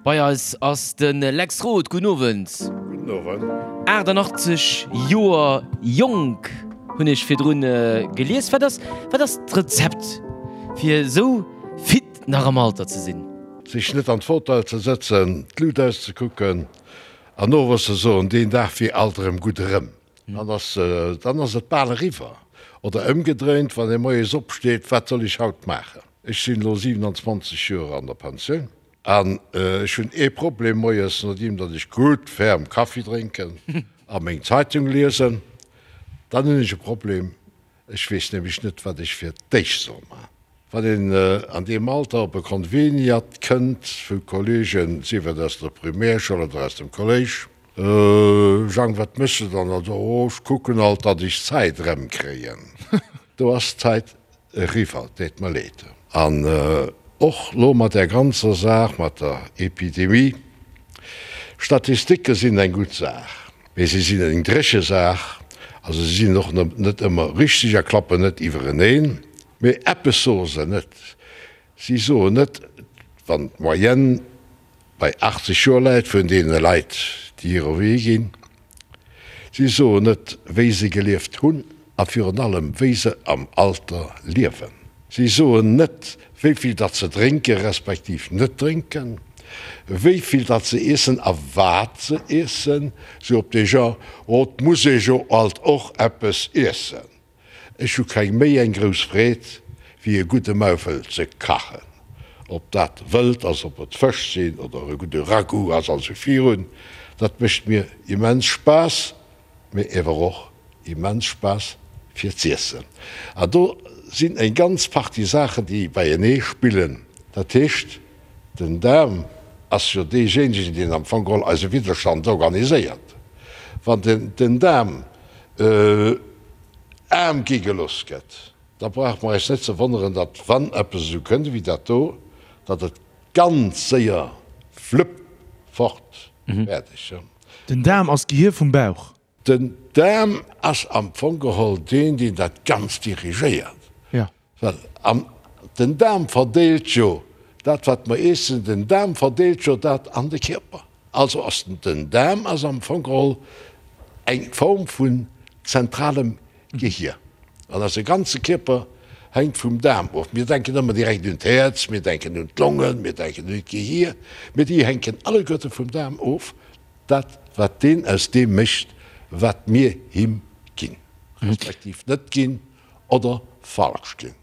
Bei eis ass de Lex Roth. Gudden Owend. Gudden Owend. 88 Joer jonk hunn ech virdrun gelies. Wat ass, wat ass d'Rezept fir esou fit nach am Alter ze sinn? Sech net an d'Fauteuil ze sëtzen, d'Lut auszekucken an owes ze soen, deen Dag wier alt erëm gutt erëm. Dann ass, dann ass et bal eriwwer. Oder ëmgedréint, wann ee moies opsteet, wat soll ech haut maachen? Ech sinn elo 27 Joer an der Pensioun an ech hunn ee Problem moies, nodeem datt ech gutt ferm Kaffi drénken a meng Zeitung liesen, dann hunn ech e Problem, Ech weess nämlech net, wat ech fir d'éischt soll maachen. Wann een an deem Alter op e Konveniat kënnt vu Kolleegen, sief et aus der Primärschoul oder aus dem Kolléisch, Jang, wat méchs de dann? Also, oh, ech kucken alt, datt ech d'Zäit erëmkréien. Do ass d'Zäit eriwwer, deet mer leed. An och lo mat där ganzer Saach mat der Epidemie, Statistike sinn eng gutt Saach, mee si sinn eng dréche Saach, also si sinn och net ëmmer richteg a klappen net iwwereneen. Mee eppes soe se net, si soen net, wann d'Moyenne bei 80 Joer läit vun deene Leit, déi hire Wee ginn, Si soen net, wéi se gelieft hunn a virun allem, wéi se am Alter liewen. Si soen net, wéi vill datt se drénke respektiv net drénken, wéi vill datt se iessen a wat se iessen, sou op dee Genre, Oh, 't muss ee jo alt och eppes iessen. Ech hu keng méi eng grouss Freed wéi e gudde Maufel ze kachen. Ob dat Wëld ass, ob et Fësch sinn oder e gudde Ragout ass an sou virun, dat mécht mir immens Spaass, mee ewer och immens Spaass fir z'iessen. An do sinn eng ganz Partie Saachen déi beienee spillen. Dat heescht, den Daarm ass jo deejéinegen deen am Fong geholl eise Widderstand organiséiert. Wann den Daarm aarm gi gelooss gëtt, da brauche mer eis net ze wonneren, datt wann eppes esou kënnt ewéi dat do, datt et ganz séier flupp, fort, fäerdeg. Den Daarm ass d'Gehir vum Bauch. Den Daarm ass am Fong geholl deen, deen dat Ganzt dirigéiert. Well an den Daarm verdeelt jo dat wat mer iessen, den Daarm verdeelt jo dat an de Kierper. Also ass den Daarm ass am Fong geholl eng Form vun zentralem Gehier. An eise ganze Kierper hänkt vum Daarm of. Mir denken ëmmer direkt un d'Häerz, mir denken un d'Longen, mir denken un d'Gehier, mee déi hänken alleguerte vum Daarm of, dat wat deen aus deem mécht wat mir him ginn, respektiv net ginn. Oder falsch ginn.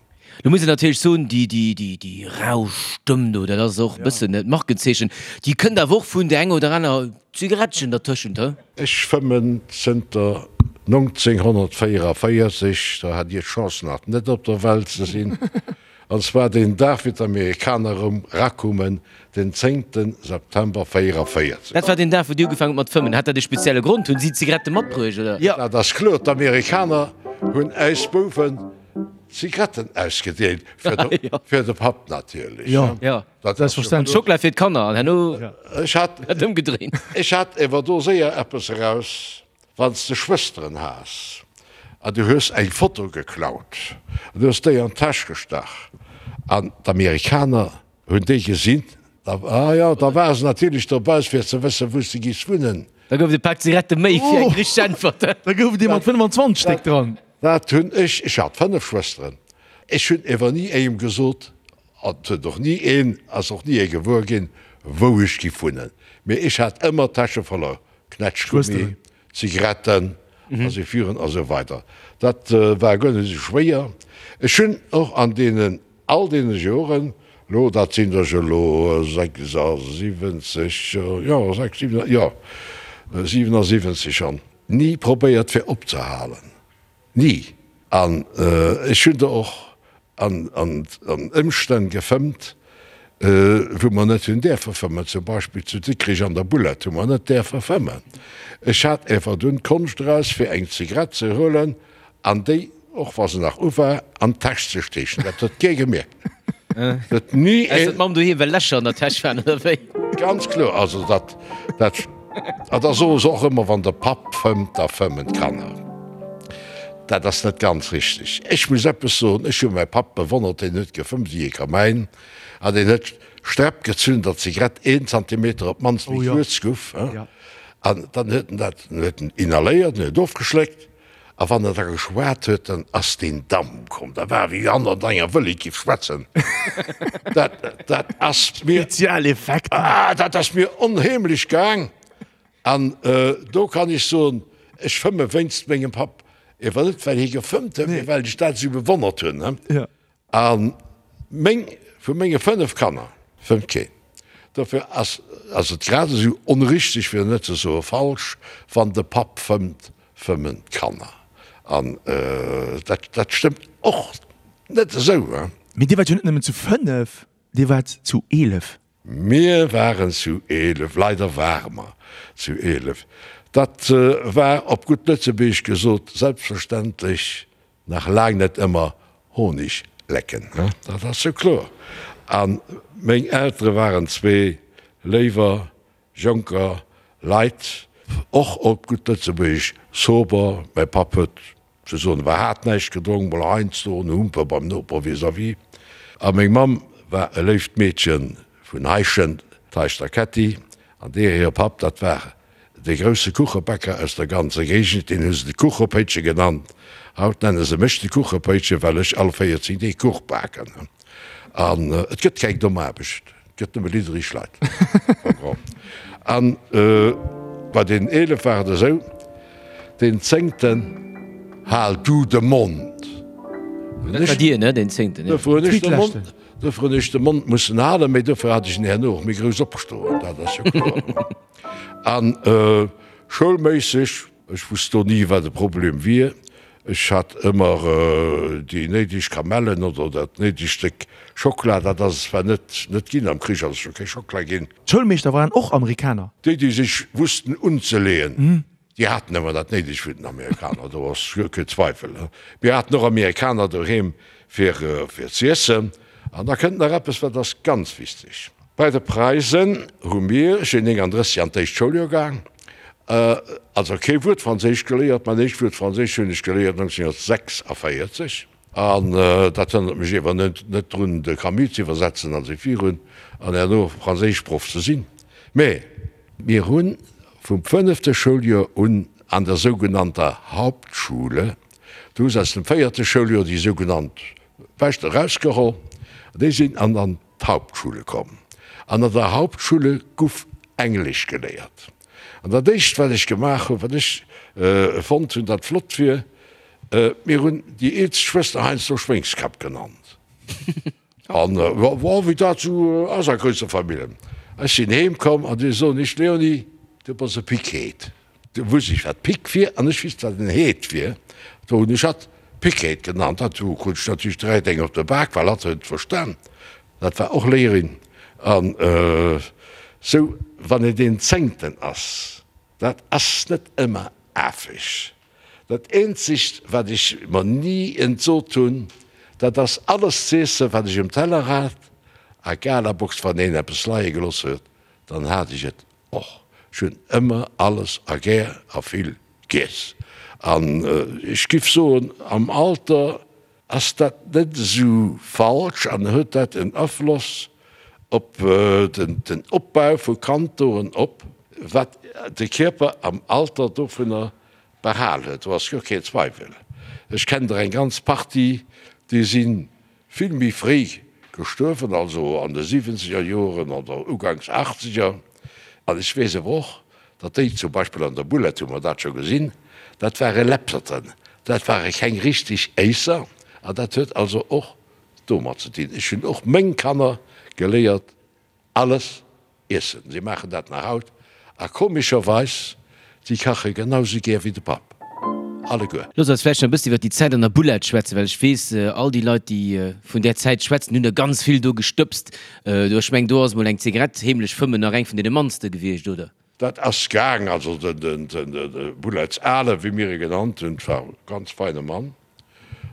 Lo muss een natierlech soen, déi, déi, déi, déi rau Stëmm do, dat ass och e bëssen d'Markenzeechen. Déi kënnt awer och vun där enger oder aner Zigarettchen dertëschent, he? Ech fëmmen zënter 1944, do hat Dir d'Chance nach net op der Welt ze sinn. An zwar deen Dag wéi d'Amerikaner erëm rakummen, den zéngten September 44. Dat war deen Dag wou Dir ugefaangen hutt mat fëmmen. Hat dat e spezielle Grond? Hunn si Zigarette matbruecht, oder? Jo. Dat ass kloer, d'Amerikaner hunn äis Bouwen Zigaretten ausgedeelt, fir de, fir de Papp natierlech. Jo, jo, selbstverständlech. Schockela fir d'Kanner an herno Ech hat, dat ëmgedréint. Ech hat ewer do séier eppes eraus. Wann s de Schwësteren has an du hues eng Foto geklaut an du hues déi an d'Täsch gestach an d'Amerikaner hunn déi gesinn, da, ah jo, da ware se natierlech dobäi fir ze wëssen, wou s de giffs wunnen. Da gouf et e Pak Zigarette méi fir eng richteg Äntwert. Da gouf et ee mat 25 Stéck dran. Dat hunn ech, ech hat 5 Schwësteren, ech hunn ewer ni engem gesot, an et huet och ni een, ass och ni ee gewuer ginn, wou ech giff wunnen, mee ech hat ëmmer d'Täsche voller Knätschgummi, Zigaretten a sou virun a sou weider. Dat war guer net esou schwéier. Ech hunn och an deenen, all deene Joren, elo dat sinn der jo elo 76, jo, 6, 7, jo, 77 schonn, ni probéiert fir opzehalen. Ni. An ech hunn der och an Ëmstänn gefëmmt, wou mer net hunn däerfe fëmmen. Zum Beispill zu Dikrich an der Bullett hu mer net däerfe fëmmen. Ech hat ewer dunn d'Konscht eraus, fir eng Zigarett ze huelen an déi, och wa se nach u war, an d'Täsch ze steechen. Dat huet kee gemierkt. Huet ni een. Ausser d'Mamm doheem, well Lächer an der Täsch waren, oder wéi? Ganz kloer. Also dat, dat, a da soe se och ëmmer, wann de Papp fëmmt, da fëmmen d'Kanner. Dat ass net ganz richteg. Ech muss eppes soen, Ech hu mäi Papp bewonnert, deen huet gefëmmt wéi e Kamäin an deen huet Sträpp gezunn, datt d'Zigarett een Zantimeter op d'mannst méi kuerz guff. An dann huet en dat, huet en inhaléiert, en huet ofgeschléckt a wann en da geschwat huet, dann ass deen Damp komm. Dat war wéi wann en an enger Wëllek giff schwätzen. Dat, dat ass mir. Spezialeffekter. Ah, dat ass mir onheemlech gaang. An do kann ech soen, ech fëmme wéinst mengem Papp, ewer net well hie gefëmmt huet, mee well ech dat esou bewonnert hunn. A meng, vu menge 5 Kanner fëmmt keen. Dofir ass ass et grad esou onrichteg, fir net ze soe falsch, wann de Papp fëmmt, fëmmen d'Kanner. An dat dat stëmmt och net esou. Mee dir waart jo net nëmmen zu 5, dir waart zu 11. Mir waren zu 11, leider ware mer zu 11. Dat war, op gutt Lëtzebuergesch gesot, selbstverständlech nach laang net ëmmer Honig lecken, dat ass jo kloer. A meng Eltere waren zwee léiwer jonker Leit, och op gutt Lëtzebuergesch sober. Mäi Papp huet Ze soen war hat näischt gedronk, mol heiansdo en Humper beim Noper vis-à-vis. A meng Mamm war e léift Meedche vun Heischent, d'Heischter Ketty, an deer hire Papp, dat war de grousse Kuchebäcker aus der ganzer Géigend, deen hu se de Kuchepéitche genannt. Haut nenne se mech de Kuchepéitche, well ech all 14 Deeg Kuch baken. An et gëtt keng domm Aarbecht. Gëtt nëmme liddereg Leit. An bei den 11 war et esou, deen Zéngten, Hal du de Mond! Dat war dir, ne, deen Zéngten, jo. Dofir hunn ech de Mond, dofir hunn ech de Mond mussen halen, mee dofir hat ech en herno och méi grouss opstoen, dat ass jo kloer. An schoulméisseg Ech wusst do ni wat de Problem wier. Ech hat ëmmer déi néideg Kamellen oder dat néidegt Stéck Schokla. Dat ass et zwar net net ginn, am Krich ass et jo kee Schokla ginn. D'Schoulmeeschter waren och Amerikaner? Déi, déi sech wussten unzeleeën, déi haten ëmmer dat Néidegt vun den Amerikaner, do ass guer kee Zweifel. Mir haten och Amerikaner doheem fir fir z'iessen. An da kënnt nach eppes, wat ass ganz wichteg. Bei de Preisen hu mir, ech sinn 39 an d'éischt Schouljoer gaang, also kee Wuert Franséisch geléiert. Mäin éischt Wuert Franséisch hunn ech geléiert 1946. An dat hënnert mech iewer net drun, de Camus ze iwwersetzen an esou virun an herno Franséischproff ze sinn. Mä mir hu vum fënnefte Schouljoer un an der sougenannter Hauptschule, do hu se aus dem véierte Schouljoer déi sougenannt Bescht erausgeholl, déi sinn an an d'Hauptschule komm. An an der Hauptschule guff Englesch geléiert. An dat éischt wat ech gemaach hunn, wat ech fonnt hunn, dat flott wier, mir hunn déi eelst Schwëster heiansdo Schwéngskapp genannt. An jo, wéi dat esou ass a grousse Famillen. Ech sinn heem komm an déi soen, ech, Léonie, du bass e Pickheet. Du wusst ech wat Pick wier an ech wisst wat en Heet wier. Do hunn ech hatt Pickheet genannt. Dat du krut ech natierlech direkt eng op de Bak, well hatt huet et verstan. Dat war och Léierin. An sou wann een deen Zéngten ass, dat ass net ëmmer afeg. Dat eenzegt wat ech mer ni entsot hunn, dat ass alles z'iessen wat ech um Teller hat. A Galabox, wann een eppes leie gelooss huet, dann hat ech et Och ech hunn ëmmer alles a gär a vill giess. An ech giff soen, am Alter ass dat net esou falsch an huet dat en Afloss op den Opbau vu Kantoren op, wat de Kierper am Alter dovunner behal huet, do ass guer keen Zweiwel. Ech kennen der eng ganz Partie, déi sinn Vill méi fréi gestuerwen, also an de siwwenzeger Joren oder uganks achtzeger. An ech weess awer och, datt déi, zum Beispill an der Boulette hu mer dat scho gesinn, dat ware Läpserten, dat ware keng richteg Éisser. An dat huet also och domat ze dinn. Ech hunn och meng Kanner geléiert, Alles iessen. Si maachen dat nach haut a komescherweis, si kache genau sou gär wéi de Papp. Alleguer. Looss eis vläicht nach e bëssen iwwer déi Zäit an der Boulette schwätzen, well ech weess, all déi Leit, déi vun där Zäit schwätzen, hunn der ganz vill do gestëbst. Do, ech mengen, do ass emol eng Zigarett heemlech fëmmen nach eng vun deene mannste gewiescht, oder? Dat ass gaang. Also de Boulettes Ale, wéi mir e genannt hunn, war e ganz feine Mann.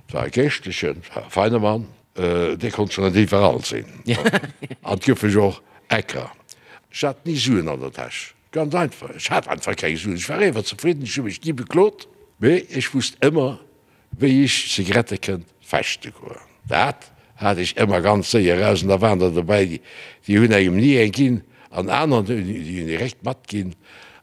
Et war e Geeschtlechen, et war e feine Mann, dee konnt scho net iwwerall sinn. An et goufe jo och Ecker. Ech hat ni Suen an der Täsch, ganz einfach, ech hat einfach keng Suen. Ech war éiwer zefridden, ech hu mech ni beklot, mee ech wusst ëmmer. Wéi ech Zigarette kënnt fechte goen. Dat hat ech ëmmer ganz séier eraus an da waren der dobäi, déi hunn engem ni eng ginn an aner, déi hunn direkt matginn.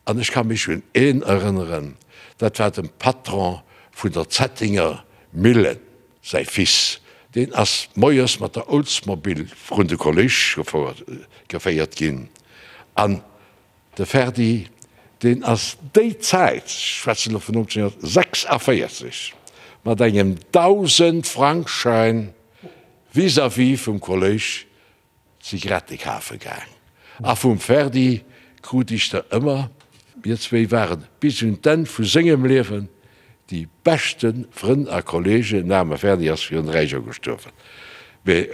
An ech ka mech un een erënneren, dat war dem Patron vun der Zettinger Millen säi Fils, deen ass moies mat der Oldsmobile vrun de Kolléisch geféiert ginn an De Ferdi, deen ass déi Zäit, ech schwätzen elo vun 1946, mat engem Dausendfrankschäin vis-à-vis vum Kolléisch Zigarette kafe gaang. A vum Ferdi krut ech der ëmmer. Mir zwéi ware bis un d'Enn vu sengem Liewen déi beschte Frënn a Kollegen. Den aarme Ferdi ass virun 3 Joer gestuerwen. Mee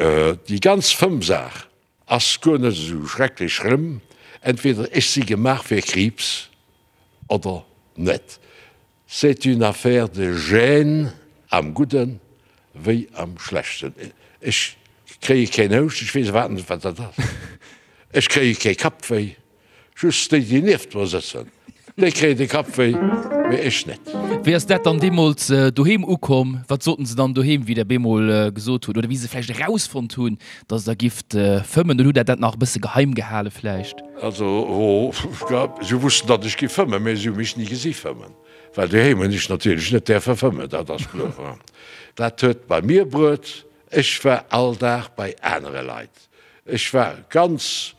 déi ganz Fëmmsaach Ass guer net esou schrecklech schlëmm. Entweder ech si gemaach fir Kriibs oder net. C'est une affaire de gènes, am Gudden wéi am Schlechten. Ech kréie keen Houscht, ech weess iwwerhaapt net wat dat ass. Ech kréie kee Kappwéi. Just déi, déi nieft mer sëtzen, déi kréien de Kapp wéi, mee ech net. Wéi ass dat dann deemools doheem ukomm? Wat soten se dann doheem, wéi der bemol gesot hutt, oder wéi se vläicht erausfonnt hunn, datt der gifft fëmmen? Oder hutt der dat nach e bësse geheim gehale vläicht? Also, si wussten, datt ech giff fëmmen, mee si hu mech ni gesi fëmmen, well doheem hunn ech natierlech net däerfe fëmmen, dat ass kloer. Dat huet bei mir bruet, ech war all Dag bei anere Leit, ech war ganz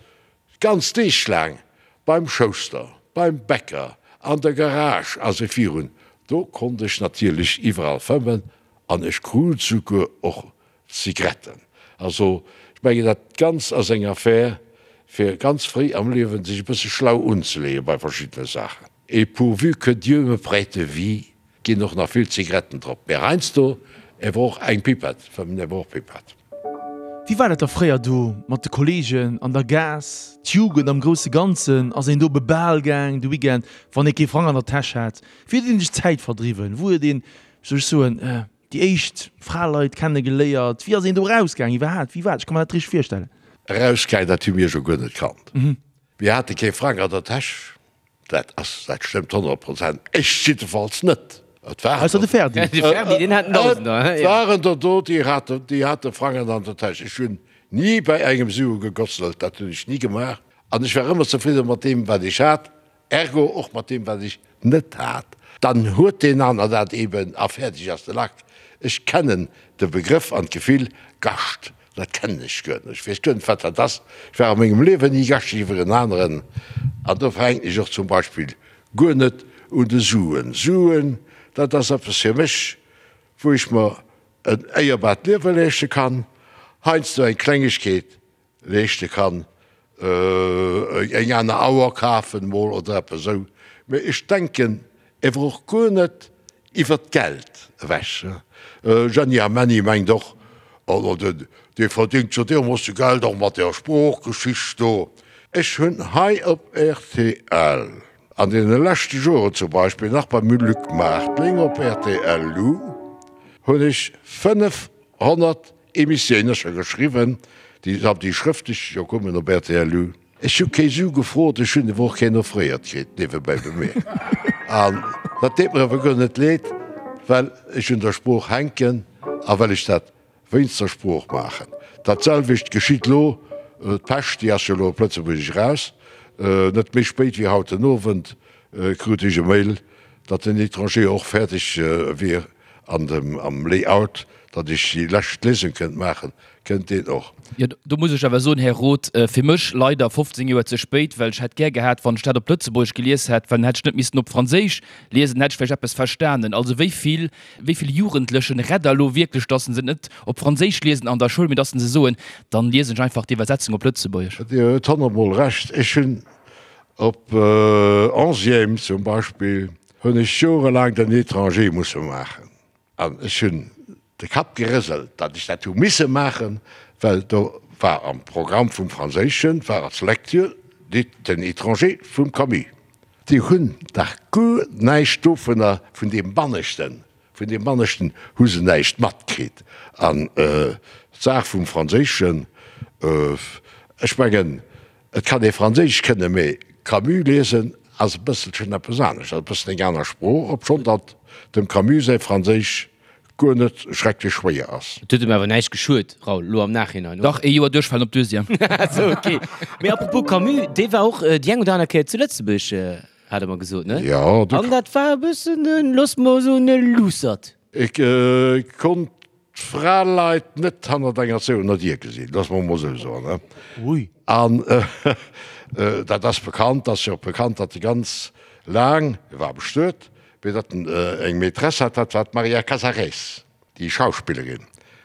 Ganz Deeg laang beim Schouster, beim Bäcker, an der Garage a sou virun. Do konnt ech natierlech iwwerall fëmmen an ech krut souguer och Zigretten. Also ech mengen dat Ganzt ass eng Affär fir ganz fréi am Liewen sech e bësse schlau unzeleeë bei verschiddene Saachen. Et pourvu que Dieu me prête vie Ginn och nach vill Zigaretten drop, mee heiansdo ewer och eng Pipette, fëmmen ewer och Pipette. Wéi war dat da fréier do mat de Kollegen an der Gaass, d'Jugend am grousse Ganzen? Ass een do op e Bal gaang de Weekend, wann ee kee Frang an der Täsch hat? Wéi huet een sech d'Zäit verdriwwen? Wou huet een, wéi soll ech soen, déi éischt Fraleit kenne geléiert? Wéi ass een do erausgaang iwwerhaapt? Wéi war dat? Ech ka mer dat net richteg virstellen. Erausgaang, dat hu mir jo guer net kannt. Mir hate kee Frang an der Täsch. Dat ass, dat stëmmt 100 Prozent. Ech jiddefalls net. Et waren Ausser de Ferdi. De Ferdi, deen hat en Dausender, Et waren der do, déi haten, déi hate Frangen an der Täsch. Ech hunn ni bei engem Sue gegotzelt, dat hunn ech ni gemaach. An ech war ëmmer zefridde mat deem, wat ech hat, ergo och mat deem, wat ech net hat. Dann huet deen aner dat eben a fäerdeg ass de Lack. Ech kennen de Begrëff an d'Gefill Gascht Dat kennen ech guer net. Ech weess guer net, wat dat ass. Ech war a mengem Liewen ni Gascht iwwer en aneren. An dofir hänken ech och zum Beispill guer net un de Suen. Suen, dat ass eppes fir mech, wou ech mer en éierbart Liewe leeschte kann, heiansdo eng Klengegkeet leeschte kann, eng aner Auer kafen mol oder eppes esou. Mee ech denken ewer och guer net iwwer d'Geld ewech. Jeanny a Menny mengt och, oh dee verdingt jo deermoosse Geld och mat där Sproochgeschicht do. Ech hunn hei op rtl an deene leschte Joren, zum Beispill nach beim Luc Martling op rtl Lu, hunn ech 500 Emissiounen scho geschriwwen, déi déi schrëftlech jo kommen op rtl Lu. Ech hu kee Su gefrot, ech hunn ewer och keen offréiert kritt, niewebäi bemierkt. An dat deet mer ewer guer net leed, well ech un der Sprooch hänken a well ech dat wéinst der Sprooch maachen. Dat selwecht geschitt lo, d'Pescht, déi ass jo elo op Lëtzebuergesch eraus, net méi spéit wéi haut den Owend krut ech e Mail, datt den Étranger och fäerdeg wier an dem am Layout, datt ech déi lescht Liesung kënnt maachen, kënnt deen och. Jo, do muss ech awer soen, Här Roth, fir mech leider 15 Joer ze spéit, well ech hätt gär gehat, wann ech dat op Lëtzebuergesch gelies hätt, well dann hätt ech net missen op Franséisch liesen, dann hätt ech vläicht eppes verstanen. Also wéi vill, wéi vill Jugendlechen rett Der elo wierklech, datt se net op Franséisch liesen an der Schoul, mee datt se soen, dann liesen ech einfach d'Iwwersetzung op Lëtzebuergesch? Dir hutt honnertmol Recht. Ech hunn op Onzième zum Beispill hunn ech jorelaang den Étranger musse maachen. An ech hunn de Kapp gerëselt, datt ech dat hu misse maachen, well do war am Programm vum Franséischen, war als Lecture den Étranger vum Camus. Déi hunn dach guer näischt dovunner, vun deem Banneschten, vun deem Banneschten hu se näischt matkritt. An d'Saach vum Franséischen, ech mengen, Et kann ee Franséisch kënnen, mee Camus liesen ass e bësselchen eppes anescht, ass e bëssen eng aner Sprooch, obschonn datt dem Camus säi Franséisch. Guer net schrecklech schwéier ass. Et huet em awer näischt geschuet, Raoul, lo am Nachhinein, oder? Dach, ee Joer duerchfalen op Deuxième. Sou, ok. Mee apropos Camus, dee war och déi eng oder aner Kéier zu Lëtzebuerg, hat e mer gesot, ne? Jo, du. An dat war e bëssen en, looss mer soen, e Luussert. Ech konnt d'Fraleit net hannert enger zouener Dier gesinn, looss mer emol esou soen, ne? Ui. An dat ass bekannt, ass jo och bekannt, datt e ganz laang, e war bestuet, Mee datt en eng Maîtresse hat, dat war d'Maria Casarès, déi Schauspillerin.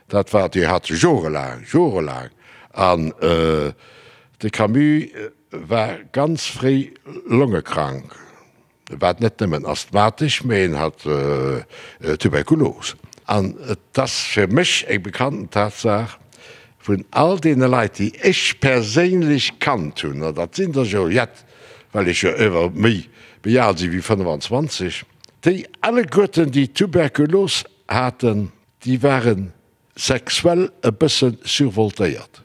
Dat war, déi hat se jorelaang, jorelaang. An de Camus war ganz fréi longekrank. E war net nëmmen asthmatesch, mee en hat Tuberkulos. An et ass fir mech eng bekannten Tatsaach, vun all deene Leit, déi ech perséinlech kannt hunn, an dat sinn der jo jett, well ech jo ëwer méi méi al si wéi 25, déi alleguerten, déi Tuberkulos haten, déi ware sexuell e bësse survoltéiert.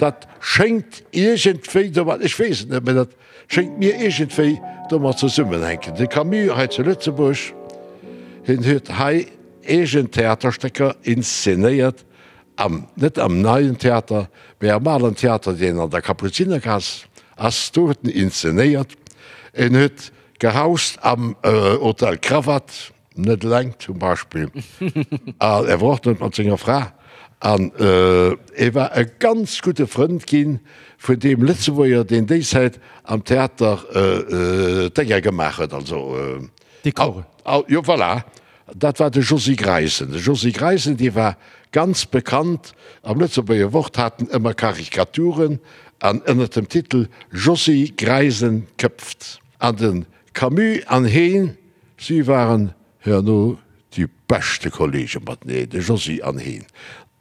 Dat schéngt iergendwéi domat, ech weess et net, mä dat schéngt mir iergendwéi domat zesummenhänken. De Camus hei zu Lëtzebuerg, hien huet hei eegen Theaterstécker inszenéiert, Am, net am Neien Theater, mä am Alen Theater, deen an der Kapuzinergaass ass, do huet en inszenéiert. En huet gehaust am Hotel Krawatt, net eleng zum Beispill, an e war och net mat senger Fra. An e war e ganz gudde Frënd gi vun deem Lëtzebuerger, deen déi Zäit am Theater d'Dénger gemaach huet, also. Dekore. Jo, voilà. Dat war de Josy Greisen. De Josy Greisen, dee war ganz bekannt am Lëtzebuerger Wort, hat en ëmmer Karikaturen an ënner dem Titel Josy Greisen köpft. An de Camus an heen, si waren herno déi beschte Kollege mateneen, de Josy an heen.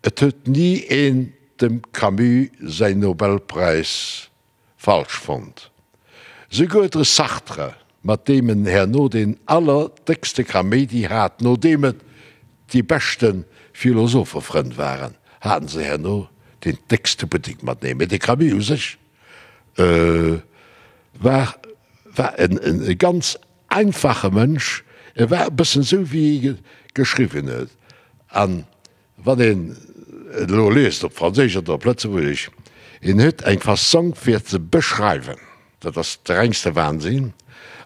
Et huet ni een dem Camus säin Nobelpräis falsch fonnt. Souguer de Sartre, mat deem en herno deen allerdéckste Kaméidi hat, nodeem et déi beschte Philosophefrënn waren, haten se herno deen déckste Buttek mateneen. Mee de Camus u sech war war en ganz einfache Mënsch, e war e bëssen esou wéi e geschriwwen huet. An Wann een et elo liest, op Franséisch oder op Lëtzebuergesch, een huet eng Fassong fir ze beschreiwen, dat ass de rengste Wahnsinn.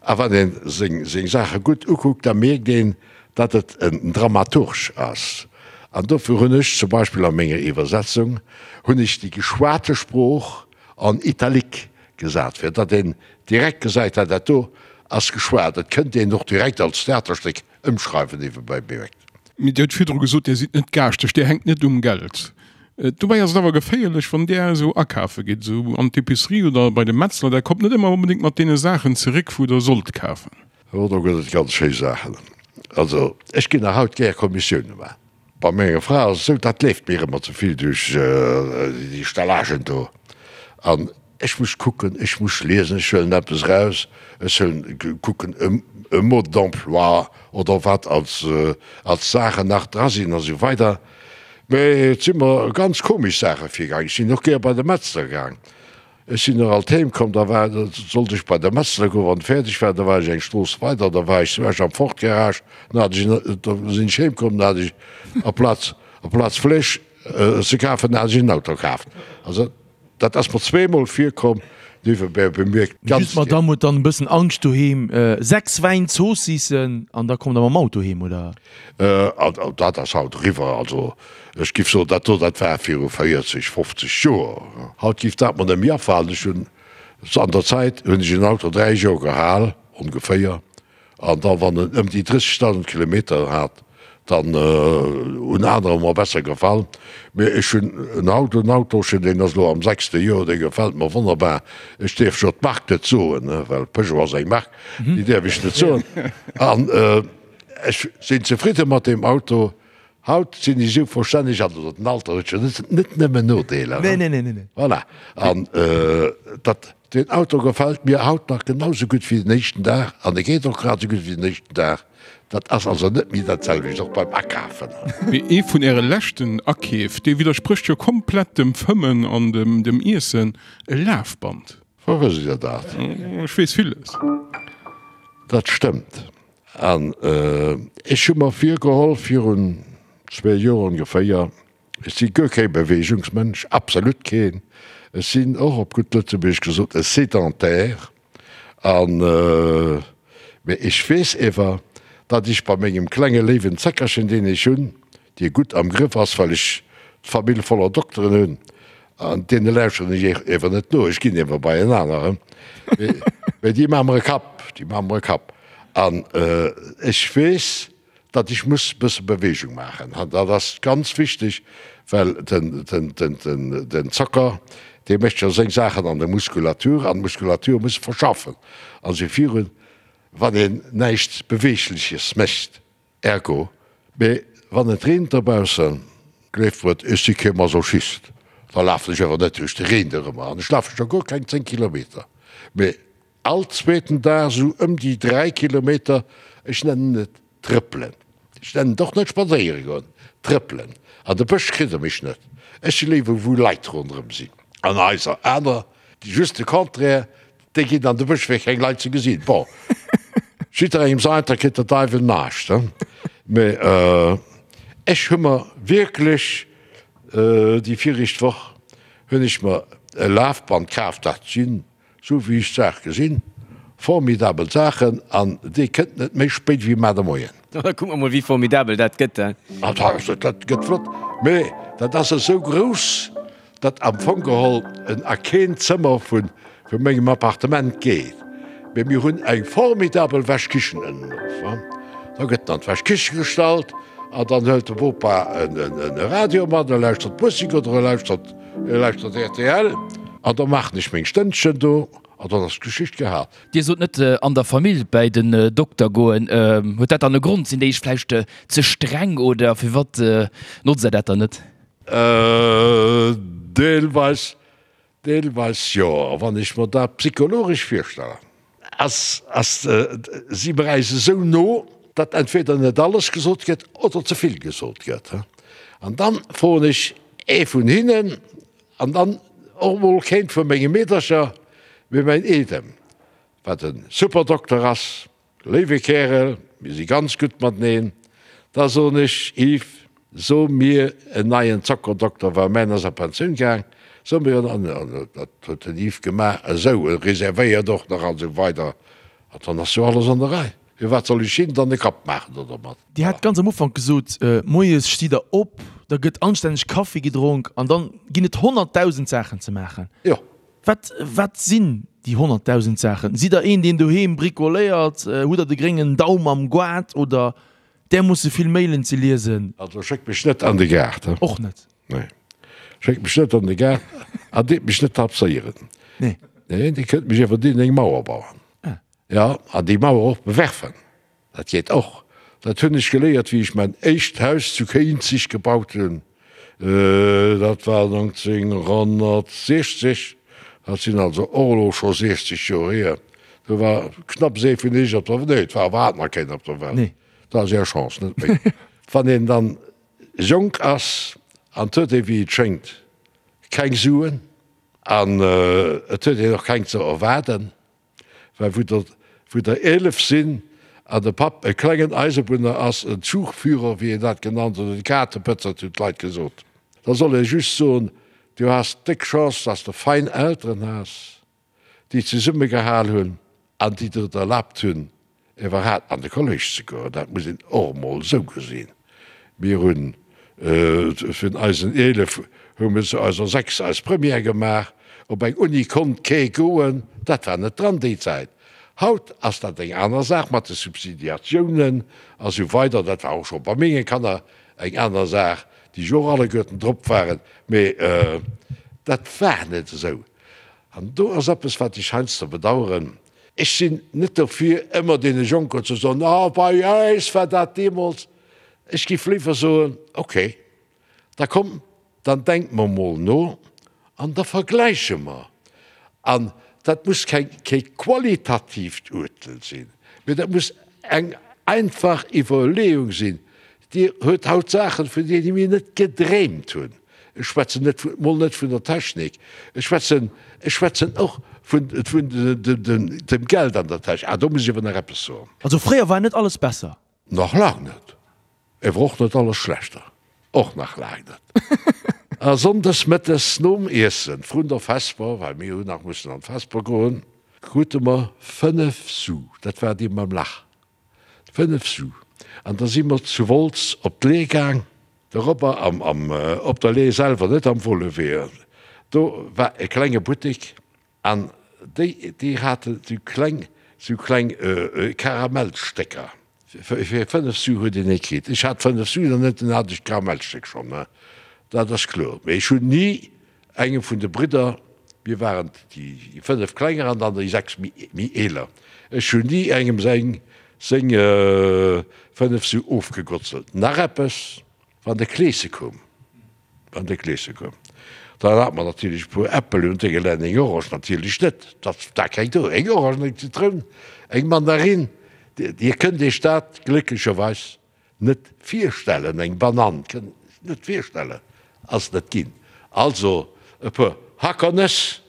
A wann een seng seng Saache gutt ukuckt, da mierkt een, datt et en Dramaturg ass. An dofir hunn ech zum Beispill a menger Iwwersetzung hunn ech déi geschwate Sprooch en italique gesat, fir datt een direkt gesäit, ah dat do ass geschwat. Et kënnt een och direkt als Theaterstéck Ëmschreiwen niewebäi bemierkt. Mee Dir hutt virdru gesot, Dir sidd net gaaschteg, Dir hänkt net um Geld. Dobäi ass et awer geféierlech, wann Där esou akafe gitt, esou an d'Epicerie oder bei de Metzler, Der kommt net ëmmer onbedéngt mat deene Saachen zeréck, wou Der sollt kafen. Oh, do gëtt et ganz schéi Saachen. Also, ech ginn nach haut gär Kommissioune maachen. Bei menger Fra ass et esou, dat leeft mir ëmmer ze vill duerch déi Stellagen do. An Ech muss kucken, ech muss liesen, ech huelen eppes eraus, ech huelen, kucken e Mode d'emploi oder wat als, als Saachen nach dra sinn a sou weider. Mä et si mer ganz komesch Saache virgaang. Ech sinn och gär bei de Metzler gaang. Ech sinn och alt heem komm, da war, da sollt ech bei de Metzler goen, wann fäerdeg war, da war ech eng Strooss weider, da war ech zu Esch am Ford Garage, dann hat ech en, da sinn ech heem komm, dann hat ech aplaz, aplaz Fleesch ze kafen, hat ech en Auto kaaft. Also. Dat ass mer zweemol virkomm, niewebäi bemierkt. Ganz Just d'Madame huet dann e bëssen Angscht doheem. 6 Wäin Zoossissen an da kommt der mam Auto heem, oder? Dat ass haut eriwwer. Also ech giff soen, dat do, dat war viru 40, 50 Joer. Haut giff dat mer net méi afalen. Ech hunn, an der Zäit hunn ech en Auto 3 Joer gehal, ongeféier. An da wann en ëm déi 30.000 Kilometer hat, dann hunn anerer mer besser gefall. Mee ech hunn en haut en Autochen, deen ass elo am sechste Joer, dee gefält mer wonnerbar. Ech däerf jo d'Mark net soen, well Peugeot ass eng Mark, déi däerf ech net soen. An ech sinn zefridde mat deem Auto. Haut sinn ech esou verstänneg, also den Alter huet jo net nëmmen Nodeeler. Nee, nee, nee, nee. Voilà. An dat, deen Auto gefält mir haut nach genau sou gutt wéi den éischten Dag an e geet och grad sou gutt wéi den éischten Dag. Dat ass also net méi dat selwecht, och beim Akafen. Mee ee vun Äre leschten Akeef, dee widdersprécht jo komplett dem Fëmmen an dem Iessen, e Lafband. Wou wësst Dir dat? Ech weess villes. Dat stëmmt. An ech hu mer virgeholl, virun zwee Joer ongeféier, ech si guer kee Beweegungsmënsch, absolut keen, ech sinn och op gutt Lëtzebuergesch gesot e Sédentaire, an, mee ech weess ewer, datt ech bei mengem klenge léiwen Zeckerchen, deen ech hunn, dee gutt am Grëff ass, well ech d'Famill voller Dokteren hunn, an deene lauschteren ech ewer net no, ech ginn ewer bei en aneren, mee déi maache mer e Kapp, déi maache mer e Kapp. An ech weess, datt ech muss e bësse Beweegung maachen. An dat ass ganz wichteg, well den Zocker, dee mécht jo seng Saachen an der Muskulatur, an d'Muskulatur muss verschaffen a sou virun, wann een näischt Beweegleches mécht. Ergo, mee wann et reent dobaussen, gleeft mer et, ech si kee Masochist, da lafen ech awer net duerch de Reen dorëmmer an ech lafe scho guer keng 10 Kilometer, mee all zweeten Dag esou ëm déi 3 Kilometer, ech nennen et trëppelen, ech nennen et och net spadséiere goen, trëppelen. An de Bësch kritt der mech net, ech si léiwer wou Leit ronderëm sinn an Haiser, aner just de Contraire, Déi ginn an de Bësch fir keng Leit ze gesinn. Bon, jidderengem säint, da kritt der Deiwel näischt, he? Mee ech hu mer wierklech, déi viregt Woch hunn ech mer e Lafband kaf, dat sinn, sou wéi ech d'Saach gesinn, formidabel Saachen an dee kënnt net méi spéit wéi mar de Moien. Da kucke mer mol, wéi formidabel dat gëtt, he? Ah, dat gëtt flott, mee dat ass esou grouss, dat am Fong geholl en a keen Zëmmer vu mengem Appartement geet, mee mir hunn eng formidabel Wäschkichen ënnen of. Da gëtt en an d'Wäschkiche gestallt an dann hëlt de Bopa e Radio mat, e lauschtert Musek oder e lauschtert e lauschtert rtl an da maachen ech meng Stënnchen do an dann ass d'Geschicht gehal. Dir sot net an der Famill bäi den Dokter goen. Huet dat dann e Grond? Sinn déi iech vläicht ze streng oder firwat notzt der dat dann net? Deelweis, deelweis jo. A wann ech mer dat psychologesch virstellen, ass, ass, si mer äis esou no, datt entweder net alles gesot gëtt oder ze vill gesot gëtt. An dann froen ech ee vun hinnen an dann och emol keent vu menge Meedercher, mee mäin Eedem, wat e super Dokter ass, Léiwe Kärel, mir si ganz gutt mateneen. Da soen ech, Yves, so mir en neien Zockerdokter, well mäin ass a Pensioun gaang, so mir en. An dat huet den Yves gemaach, esou, e reservéiert och nach an esou weider. An dann ass jo alles an der Rei. Firwat soll ech him dann e Kapp maachen do dermat? Dir hat ganz am Ufank gesot, moies stitt Der op, da gëtt anstänneg Kaffi gedronk an dann ginn et 100.000 Saachen ze maachen. Jo. Wat, wat sinn déi 100.000 Saachen? Sidd Der een, deen doheem bricoléiert? Hutt Der de gréngen Daum am Goart oder därmoosse vill Mailen ze liesen? Also schéckt mech net an de Gaart, he? Och net? Nee. Schéckt mech net an de Gaart an deet mech net tapséieren. Nee. Nee, Dir kënnt mech iwwerdeem eng Mauer bauen. Ah. Ja, an déi Mauer och bewerfen. Dat geet och. Dat hunn ech geléiert, wéi ech mäin éischt Haus zu Kéinzig gebaut hunn. Dat war 1960, dat sinn also och elo scho 60 Joer hier. Do war knapps ee vun iech op der, nee, et war iwwerhaapt nach keen op der Welt. Dat ass är Chance, net meng. Wann een dann jonk ass an 't huet ee wéi et schéngt keng Suen an et huet een och keng ze erwaarden, Well wou der, wou der 11 sinn an de Papp e klengen Eisebunner ass, en Zugführer, wéi een dat genannt huet, en Kaartepëtzert hunn d'Leit gesot, da soll ee just soen, Du has déck Chance, dass de fein Elteren has, déi zesummegehal hunn an déi der et erlaabt hunn, Iwwerhaapt an de Kolléisch ze goen, dat muss een och emol esou gesinn. Mir hunn vun eisen 11 hu mir zu eiser 6 eis Première gemaach. Op eng Uni konnt kee goen, dat war net dran déi Zäit. Haut ass dat eng aner Saach mat de Subsidiatiounen a sou weider. Dat war och scho bei menge Kanner eng aner Saach, déi jo och alleguerten drop waren, mee dat war net esou. An do ass eppes, wat ech heiansdo bedauern, Ech sinn net dofir, ëmmer deene Jonken ze soen, Ah, bei äis war dat deemools. Ech géif léiwer soen, Okay, da komm, dann denke mer mol no an da vergläiche mer. An dat muss keng, kee qualitatiivt Urtel sinn, mee dat muss eng einfach Iwwerleeung sinn. Dir huet haut Saachen, vun deene mir net gedreemt hunn. Ech schwätzen net vu, mol net vun der Technik, ech schwätzen, ech schwätzen och vun, vun dem Geld an der Täsch. Ah, do muss ech awer nach eppes soen. Also fréier war net alles besser. Nach laang net. Ewer och net alles schlechter. Och nach laang net. A sonndes mëttes nom Iessen, vrun der Vesper, well mir hunn nach mussen an d'Vesper goen, krute mer 5 Su, dat war déi mam Lach, 5 Su. An da si mer zu Wolz op d'Le'h gaang, doropper am, am, op der Le'h selwer, net am Wollewee, do war e klenge Buttek an déi, déi haten sou kleng, sou kleng Karamellstécker. Fir 5 Su huet een ee kritt. Ech hat 5 Su nach net, dunn hat ech d'Karamellstéck schonn, dat ass kloer. Mee ech hunn ni engem vun de Bridder, mir waren déi 5 klenger an dann déi 6 méi eeler, ech hunn ni engem seng seng 5 Su ofgegotzelt. Nach eppes, Wann de Kleese koum, Wann de Kleeschen koum, dann hat mer natierlech e puer Äppel un Dénge eng Orange natierlech net, dat war keng do, eng Orange, eng Zitroun, eng Mandarin, Dir kënnt Iech dat glécklecherweis net virstellen, eng Banann, kënnt Iech net virstellen, ass net ginn. Also e puer Hackernëss,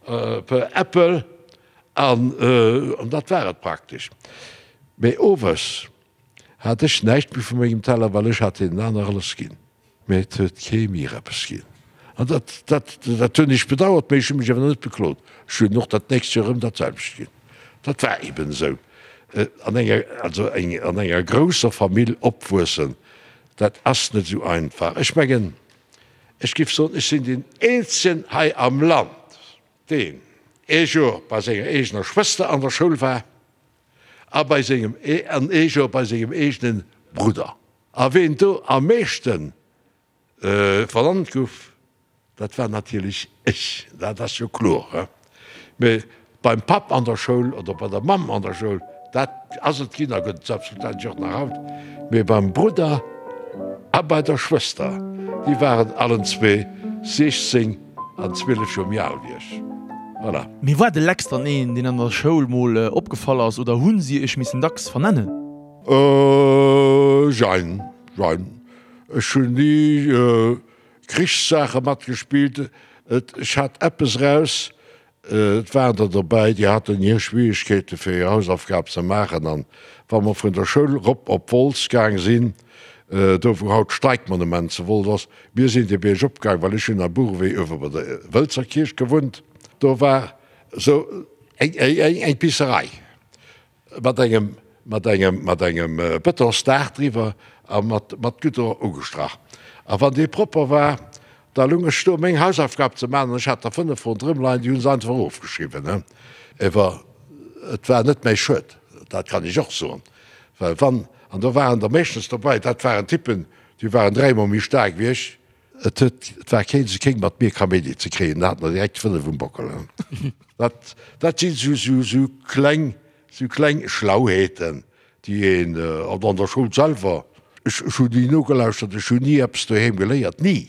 e puer Äppel an dat war et praktesch. Mee owes hat ech näischt méi vu mengem Teller, well ech hat deenen aner alles ginn. Mee et huet kee mir eppes ginn. An dat, dat, dat hunn ech bedauert, mee ech hu mech awer net beklot. Ech hunn och dat nächst Joer erëm dat selwecht ginn. Dat war eben esou. An enger, also eng, an enger grousser Famill opwuessen, dat ass net esou einfach. Ech mengen, ech géif soen, ech sinn deen eenzegen hei am Land, deen ee Joer bei senger eegener Schwëster an der Schoul war a bei sengem, an ee Joer bei sengem eegene Brudder. A ween do am meeschte vernannt guff, dat war natierlech ech, dat ass jo kloer. Mee beim Papp an der Schoul oder bei der Mamm an der Schoul, dat ass et ginn a gëtt et selbstverständlech och nach haut. Mee beim Brudder a bei der Schwëster, déi waren allen zwee 16 an 12 Joer méi al wéi ech. Voilà. Mee war de Lex dann een, deen an der Schoul mol opgefall ass oder hu si iech missen dacks vernennen? Jein, jein. Ech hunn ni Krichssaache matgespillt. Ech hat eppes eraus, et waren der dobäi, déi haten hir Schwierigkeete fir hir Hausaufgab ze maachen. An wa mer vun der Schoul rop op Wolz gaang sinn, do wou haut d'Streikmonument zu Wolz ass, mir sinn de Bierg opgaang, well ech hunn am Buchewee uewe bei der Wëlzer Kierch gewunnt, do war esou eng Pisserei. Mat engem, mat engem, mat engem Betonsdaach driwwer a mat, mat Goudron ugestrach. A wann dee propper war, da lung ech do meng Hausaufgab ze maachen an ech hat der 5 ronderëm leien, déi hu se einfach ofgeschriwwen, he. Ewer et war net mäi Schued, dat kann ech och soen, well wann, an do waren der meeschtens dobäi, dat waren Typen, déi waren dräimol méi staark wéi ech, Et huet, et war keen ze kéng mat mir Kaméidi ze kréien, da hat mer direkt 5 um Bockel. Dat, dat sinn sou, sou, sou kleng, sou kleng Schlauheeten, déi een, an an der Schoul selwer, ech, ech hunn ni nogelauschtert, ech hunn ni eppes doheem geléiert, ni!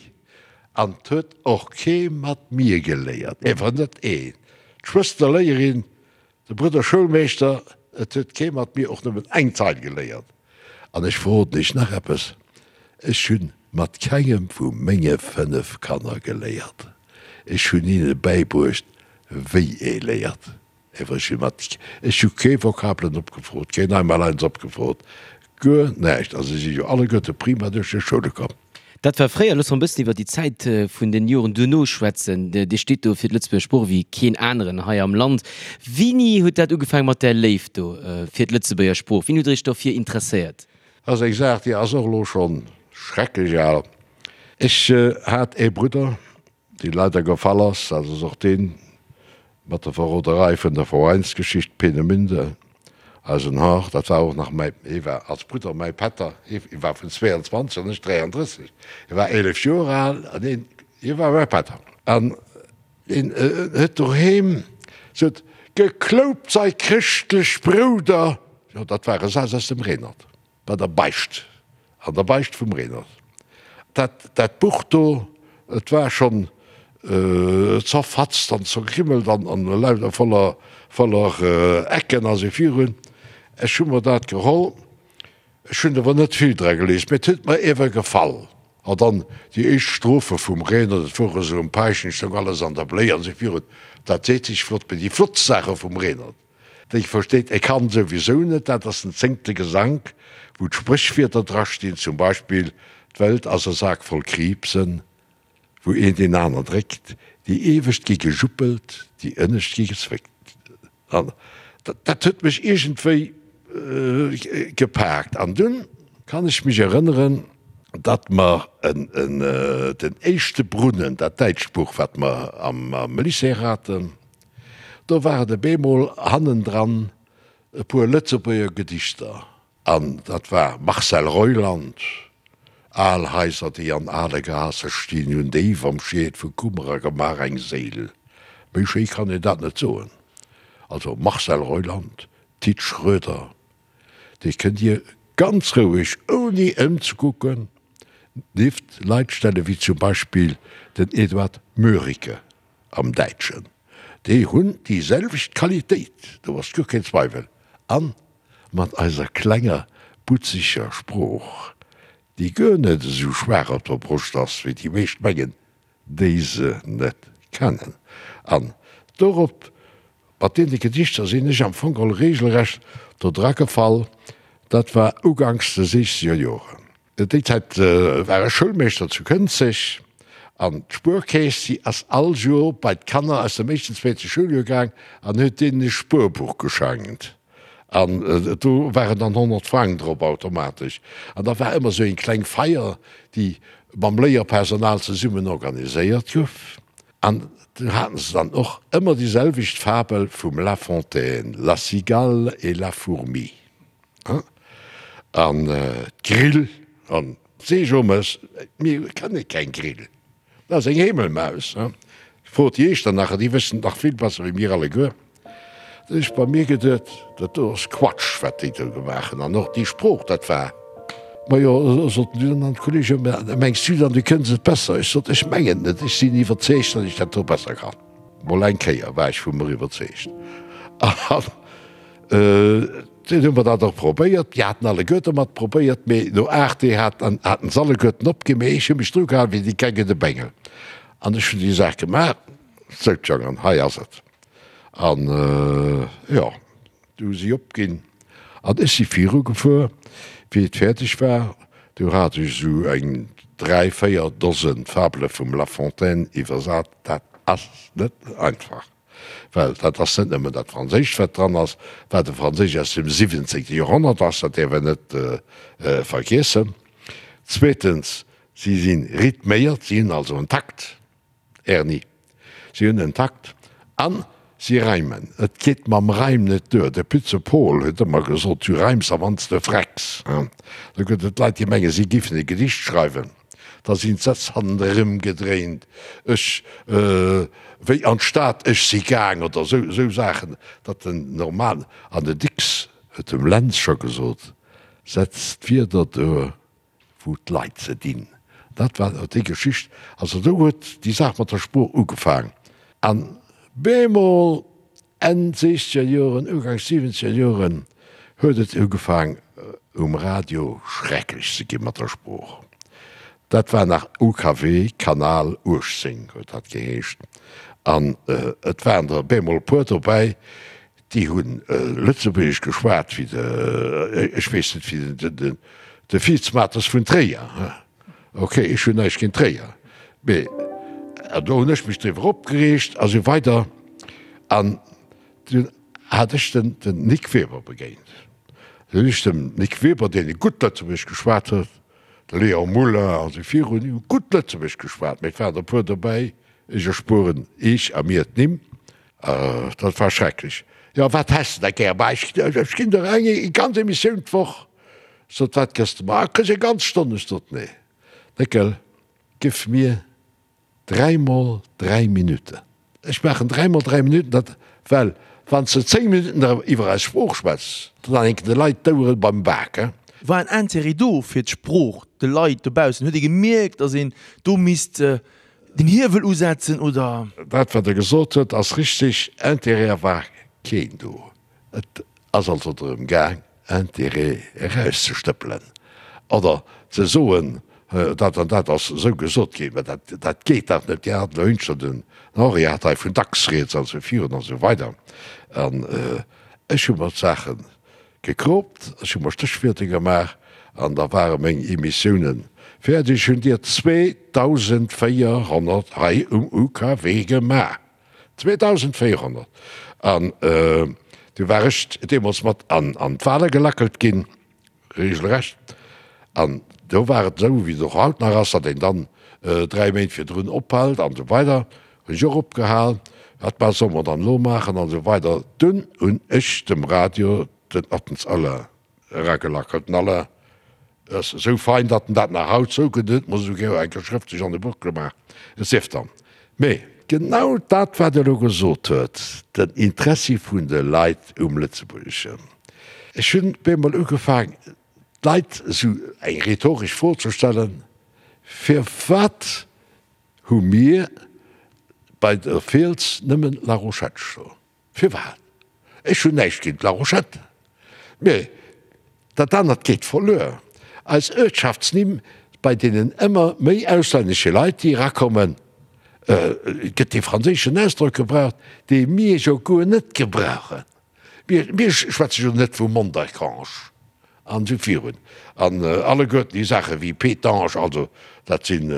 An 't huet och kee mat mir geléiert, ewer net een. D'Schwëster Léierin, De Brudder Schoulmeeschter, Et huet kee mat mir och nëmmen eng Zeil geléiert. An ech verroden Iech nach eppes, Ech hunn mat kengem vu menge 5 Kanner geléiert. Ech hunn hinne bäibruecht, wéi ee léiert. Ewer ech hu mat, ech hu kee Vokabelen opgefrot, keen Einmaleins opgefrot, guer näischt. A se si jo alleguerte prima duerch hir Schoule komm. Dat war fréier. Loosse mer e bëssen iwwer déi Zäit vun den Joren duerno schwätzen. Dir steet do fir d'Lëtzebuerger Sprooch wéi keen aneren hei am Land. Wéini huet dat ugefaangen mat där Léift do fir d'Lëtzebuerger Sprooch? Wéini hutt Der Iech dofir interesséiert? Dat ass eng Saach, déi ass och elo scho schrecklech al. Ech hat ee Brudder, dee leider gefall ass, dat ass och deen mat der Verroderei vun der Veräinsgeschicht Peenemünde, eisen Hâr, dat war och nach mäi, hie war als Brudder mäi Pätter, hie war vun 22 an ech 33, hie war 11 Joer al an hien, hie war mäi Pätter. An hien huet doheem sot, Gekloupt sei chrëschtlech Brouder, jo dat war e Saz aus dem Renert. Bei der Beicht, an der Beicht vum Renert. Dat, dat Buch do, et war schonn zerfatzt an zergrimmelt an, an lauter voller, voller Ecken a sou virun. Ech hu mer dat geholl, ech hunn awer net vill dra gelies, mee et huet mer iewer gefall. A dann déi éischt Strophe vum Renert, et wor esou um Paischen, stoung alles an der Bléi an esou virun. Dat seet sech flott, mee déi flottst Saache vum Renert, déi versteet e Kand souwisou net, dat ass den zéngte Gesank, wou d'Spréchwierder drastinn, zum Beispill, D'Welt ass e Sak voll Kriibsen, wou een deen aner dréckt, déi iewescht gi gejuppelt, déi ënnescht gi gezwéckt. An dat huet mech iergendwéi gepaakt. An dunn kann ech mech erënneren, datt mer den éischte Brunnen, dat däitscht Buch, wat mer am Lycée haten, do war et op eemol hannendran e puer Lëtzebuerger Gedichter. An dat war Marcel Reuland, Al Haiser, déi an ale Gaasse stinn, hunn déif am Schied vu Kummer a Gemaach eng Séil. Méi schéi kann een dat net soen. Also Marcel Reuland, Tit Schroeder, déi kënnt Dir ganz roueg, ouni ëmzekucken, nieft Leit stellen, wéi zum Beispill den Eduard Mörike. Am Däitschen. Déi hunn déi selwecht Qualitéit, do ass guer keen Zweiwel. A mat eiser klenger, butzeger Sprooch, déi guer net esou schwaach op der Broscht ass, wéi déi meescht mengen, déi se net kennen. An dorop, mat deene Gedichter sinn ech am Fong geholl regelrecht do dra gefall. Dat war uganks de siechzeger Joren. Déi Zäit war ech Schoulmeeschter zu Kënzeg an d'Spuerkeess, déi ass all Joer bei d'Kanner aus dem éischten, zweete Schouljoer gaang an huet deenen e Spuerbuch geschenkt. An do waren dann 100 Frang drop automatesch. An da war ëmmer esou eng kleng Feier, déi mam Léierpersonal zesummen organiséiert gouf. An do haten se dann och ëmmer déi selwecht Fabel vum La Fontaine, La cigale et la fourmi. An d'Grill an d'Seejomes, mir kenne keng Grill, dat ass eng Heemelmaus. Frot déi Iechternacher, déi wëssen et nach vill besser wéi mir alleguer. Da hunn ech bei mir geduet, dat do ass Quatsch, wat déi do gemaach hunn. An och déi Sprooch, dat war. Majo, soten dunn an d'Kollegen, mengs du dann, du kënns et besser? Ech sot, ech mengen et net, ech sinn iwwerzeegt, datt ech dat do besser kann. Mol eng Kéier war ech vu mer iwwerzeegt. An Dunn hu mer dat och probéiert. Déi haten alleguerte mat probéiert, mee no 8 Deeg haten haten se alleguerten opginn. Mee ech hu mech dru gehalen wéi déi Geng de Bengel. An ech hunn déi Saach gemaach. Sou, Jongen, hei ass et. An, jo, du hu si opginn. An ech si virugefuer. Wéi et fäerdeg war, du hat ech esou eng 3, 4 Dosen Fabele vum La Fontaine iwwersat. Dat ass net einfach. Well dat ass net nëmmen dat Franséischt, wat dran ass, wat e Franséisch aus dem siwwenzéngte Joerhonnert ass, dat däerf een net vergiessen. Zweetens, si si rhythméiert, si hunn also en Takt, Erni, si hunn en Takt a si reimen. Et geet mam Reim net duer. De Pütze Pol huet ëmmer gesot, Du reims a wann s de frecks. Do gëtt et Leit, déi mengen, si giffen e Gedicht schreiwen. Da sinn d'Sätz hannerëm gedréint, ech, wéi an d'Stad, ech si gaang oder esou, esou Saachen, datt den normalen, an den Dicks huet dem Lentz scho gesot, setz d'Wierder do, wou d'Leit se dinn. Dat war déi Geschicht. Also do huet déi Saach mat der Sprooch ugefaang. An bemol Enn siechzeger Joren, Uganks siwwenzeger Joren huet et ugefaang um Radio schrecklech ze gi mat der Sprooch. Dat war nach UKW, Kanal 18 huet dat geheescht. An et waren der bemol e puer dobäi, déi hu Lëtzebuergesch geschwat wéi de, ech weess net, wéi de Fiitzmates vun Tréier. Ok, ech hunn näischt géint Tréier, mee do hunn ech mech driwwer opgereegt a sou weider. An dunn hat ech den Nic Weber begéint. Dunn hunn ech dem Nic Weber, deen e gutt Lëtzebuergesch geschwat huet, de Léon Muller a sou virun, déi hu gutt Lëtzebuergesch geschwat, mee et waren der e puer dobäi, ech erspueren Iech a mir d'Nimm, dat war schrecklech. Jo, wat häss de da gär? Bah, ech ginn der eng ganz Emissioun d'Woch. Sot, Wat gëss de mer? Ah, kriss eng ganz Stonn. Ech sot, Nee, Néckel, giff mir dräimol dräi Minutten. Ech maachen dräimol dräi Minutten, dat, well wann s de zéng Minutten da iwwer eis Sprooch schwätz, dann hänken de Leit d'Ouere beim Bak, he. War en Intérêt do fir d'Sprooch, de Leit dobaussen? Huet ee gemierkt, datt een do misst den Hiewel usetzen, oder? Dat, wat Der gesot hutt, ass richtig. Intérêt war keen do. Et ass also drëm gaang, Intérêt erauszestëppelen oder ze soen. dat an dat ass esou gesot ginn, mä dat, dat geet dach net, Dir hat elo hünschter den Henri hat hei vun dacks rieds an esou virun an esou weider. An ech hu mer d'Saache gekroopt, ech hu mer Stéchwierter gemaach an da ware meng Emissiounen fäerdeg. Ech hunn dir 2.400 hei um UKW gemaach. 2.400! An du war ech deemools mat an d'Wale gelackelt ginn, regelrecht. An do war et esou, wéi et och haut nach ass, datt een dann 3 Méint virdrun ophält an esou weider. Hunn ech och opgehal. Wat ma solle mer dann elo maachen an esou weider. Dunn hunn ech dem Radio den Ottens Alain eragelackelt. Den Alain ass esou fein, datt en dat nach haut zougëtt. En huet mer esouguer eng Kéier schrëftlech an e Buch gemaach. Et sief dann. Mee genau dat, wat e elo gesot huet, den Interessi vun de Leit um Lëtzebuergeschen. Ech hunn bemol ugefaang, d'Leit esou eng rhetoresch Fro ze stellen, Firwat hu mir bei der Fiels nëmmen La Rochette stoen? Firwat? Ech hunn näischt géint La Rochette, mee dat anert geet verluer. Eis Uertschaftsnimm, bei deenen ëmmer méi auslännesche Leit, déi erakommen, gëtt dee franséischen Ausdrock gebraucht, dee mir jo guer net gebrauchen. Mir schwätze jo net vu Mondercange an esou virun. An alleguerten déi Saache wéi Pétange, also dat sinn,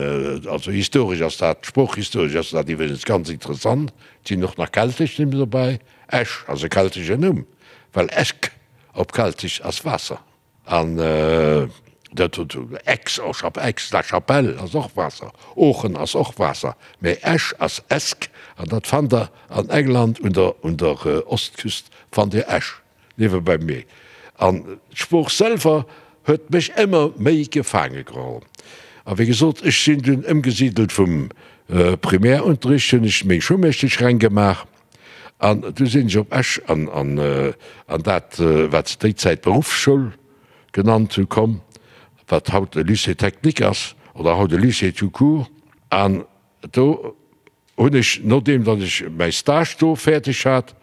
also historesch ass dat, sproochhistoresch ass dat iwwregens ganz interessant. Et sinn och nach keltesch Nimm dobäi. Esch ass e keltesche Numm, well Esch op Keltesch ass Waasser. An dat huet Aix, Aix-la-Chapelle ass och Waasser, Oochen ass och Waasser, mä Esch ass Esk an dat fannt der an England un der un der Ostküst fannt Dir Esch, niewebäi mee. An d'Sprooch selwer huet mech ëmmer méi gefaange geholl. A wéi gesot, ech sinn dunn ëmgesidelt vum Primärunterricht, hunn ech meng Schoulmeeschtesch reng gemaach An du sinn ech op Esch an an dat, wat se déi Zäit Beruffsschoul genannt hu komm, wat haut e Lycée technique ass oder haut e Lycée tout court. An do hunn ech, nodeem datt ech mäi Stage do fäerdeg hat,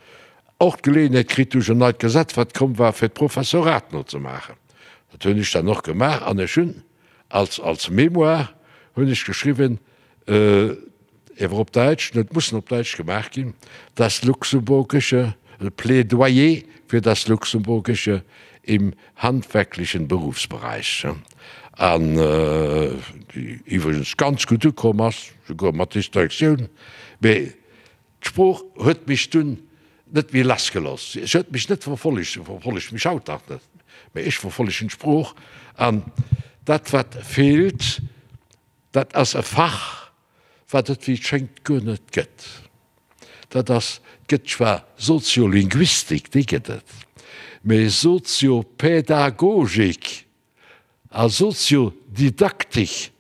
och d'Geleeënheet kritt duerch en neit Gesetz, wat komm war, fir d'Professorat nozemaachen. Dat hunn ech dann och gemaach an ech hunn als als Mémoire hunn ech geschriwwen, Ewer op Däitsch, net mussen op Däitsch gemaach ginn, das Luxemburgische, Plädoyer für das Luxemburgische im handwerklichen Berufsbereich, an déi iwwregens ganz gutt ukomm ass, souguer mat Distinctioun. Mee d'Sprooch huet mech dunn net méi lassgelooss. Se huet mech net verfollegt, se verfollegt mech haut nach net, mee ech verfollegen d'Sprooch. An dat, wat feelt, Dat ass e Fach, wat et wéi et schéngt guer net gëtt. Dat ass, et gëtt zwar Soziolinguistik, déi gëtt et, mee Soziopädagogik a Soziodidaktik,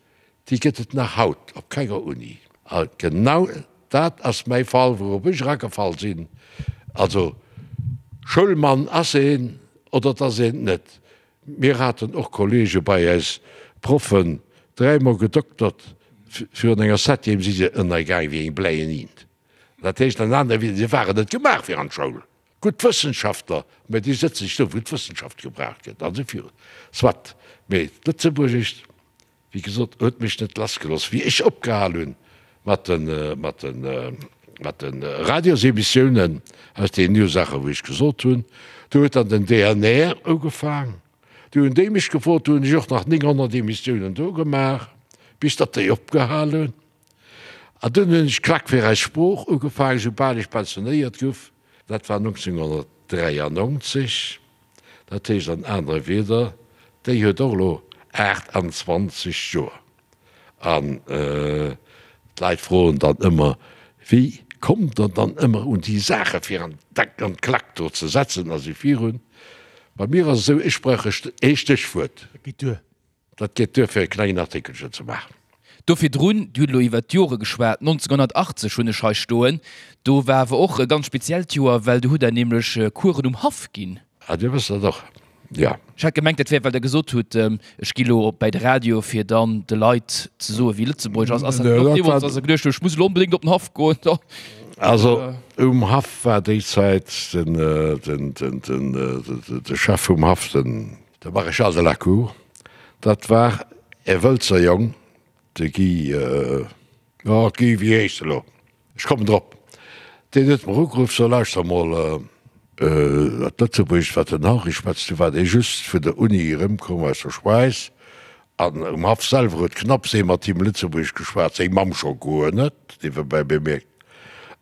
déi gëtt et nach haut op kenger Uni. A genau dat ass mäi Fall, wourop ech eragefall sinn. Also Schoulmann ass een oder et ass een et net. Mir haten och Kollege bei äis, Proffen, dräimol gedoktert, virun enger Septième si se ënnergaang wéi eng bläien Int. Dat heescht an anere Wieder, si waren net gemaach fir an d'Schoul. Gutt Wëssenschaftler, mä déi sëtzen sech do, wou d'Wëssenschaft gebraucht gëtt, an esou virun. Soit, mee d'Lëtzebuergescht, Wéi gesot, huet mech net lassgelooss. Wéi ech opgehal hunn mat de, mat de, mat de Radiosemissiounen, aus deenen Ursaachen, wou ech gesot hunn, do huet dann den DNR ugefaang. Du hunn déi mech gefrot, du hunn ech och nach 900 Emissiounen do gemaach, bis datt déi opgehal hunn. An dunn hunn ech Klack fir eis Sprooch ugefaangen, soubal ech pensionéiert guff. Dat war 1993. Dat heescht an anere Wieder, déi huet och elo 28 Joer. An d'Leit froen dann ëmmer, Wéi kommt Der dann ëmmer un déi Saache fir an d'Klack do ze setzen a sou virun? Bei mir ass et esou, ech brauch ee Stéchwuert. Dat geet duer. Dat geet duer fir e klengen Artikelchen ze maachen. Do virdrun, Dir hutt elo iwwert d'Jore geschwat, 1980 hunn ech hei stoen, do war awer och e ganz speziellt Joer, well do hutt Der nämlech Coursen um Haff ginn. Ah, Dir wësst dat och, jo. Ech hat gemengt, dat wär, well Der gesot hutt, ech gi lo bäi de Radio, fir dann de Leit ze soen, wéi Lëtzebuergesch ass. Ass dat och deemools, dass Der geduecht hutt, ech muss elo onbedéngt op den Haff goen? Also um Haff war déi Zäit den, de Chef vum Haff, den. De Maréchal de la Cour, dat war. E Wëlzer Jong, de Guy, oh Guy, wéi heescht e lo? Ech kommen drop. Deen huet mer ugeruff, so lauschter mol, dat Lëtzebuergescht wat den Henri schwätzt, du war dee just vun der Uni erëmkomm aus der Schwäiz an um Haff selwer huet knapps ee mat him Lëtzebuergesch geschwat, seng Mamm scho guer net, niewebäi bemierkt.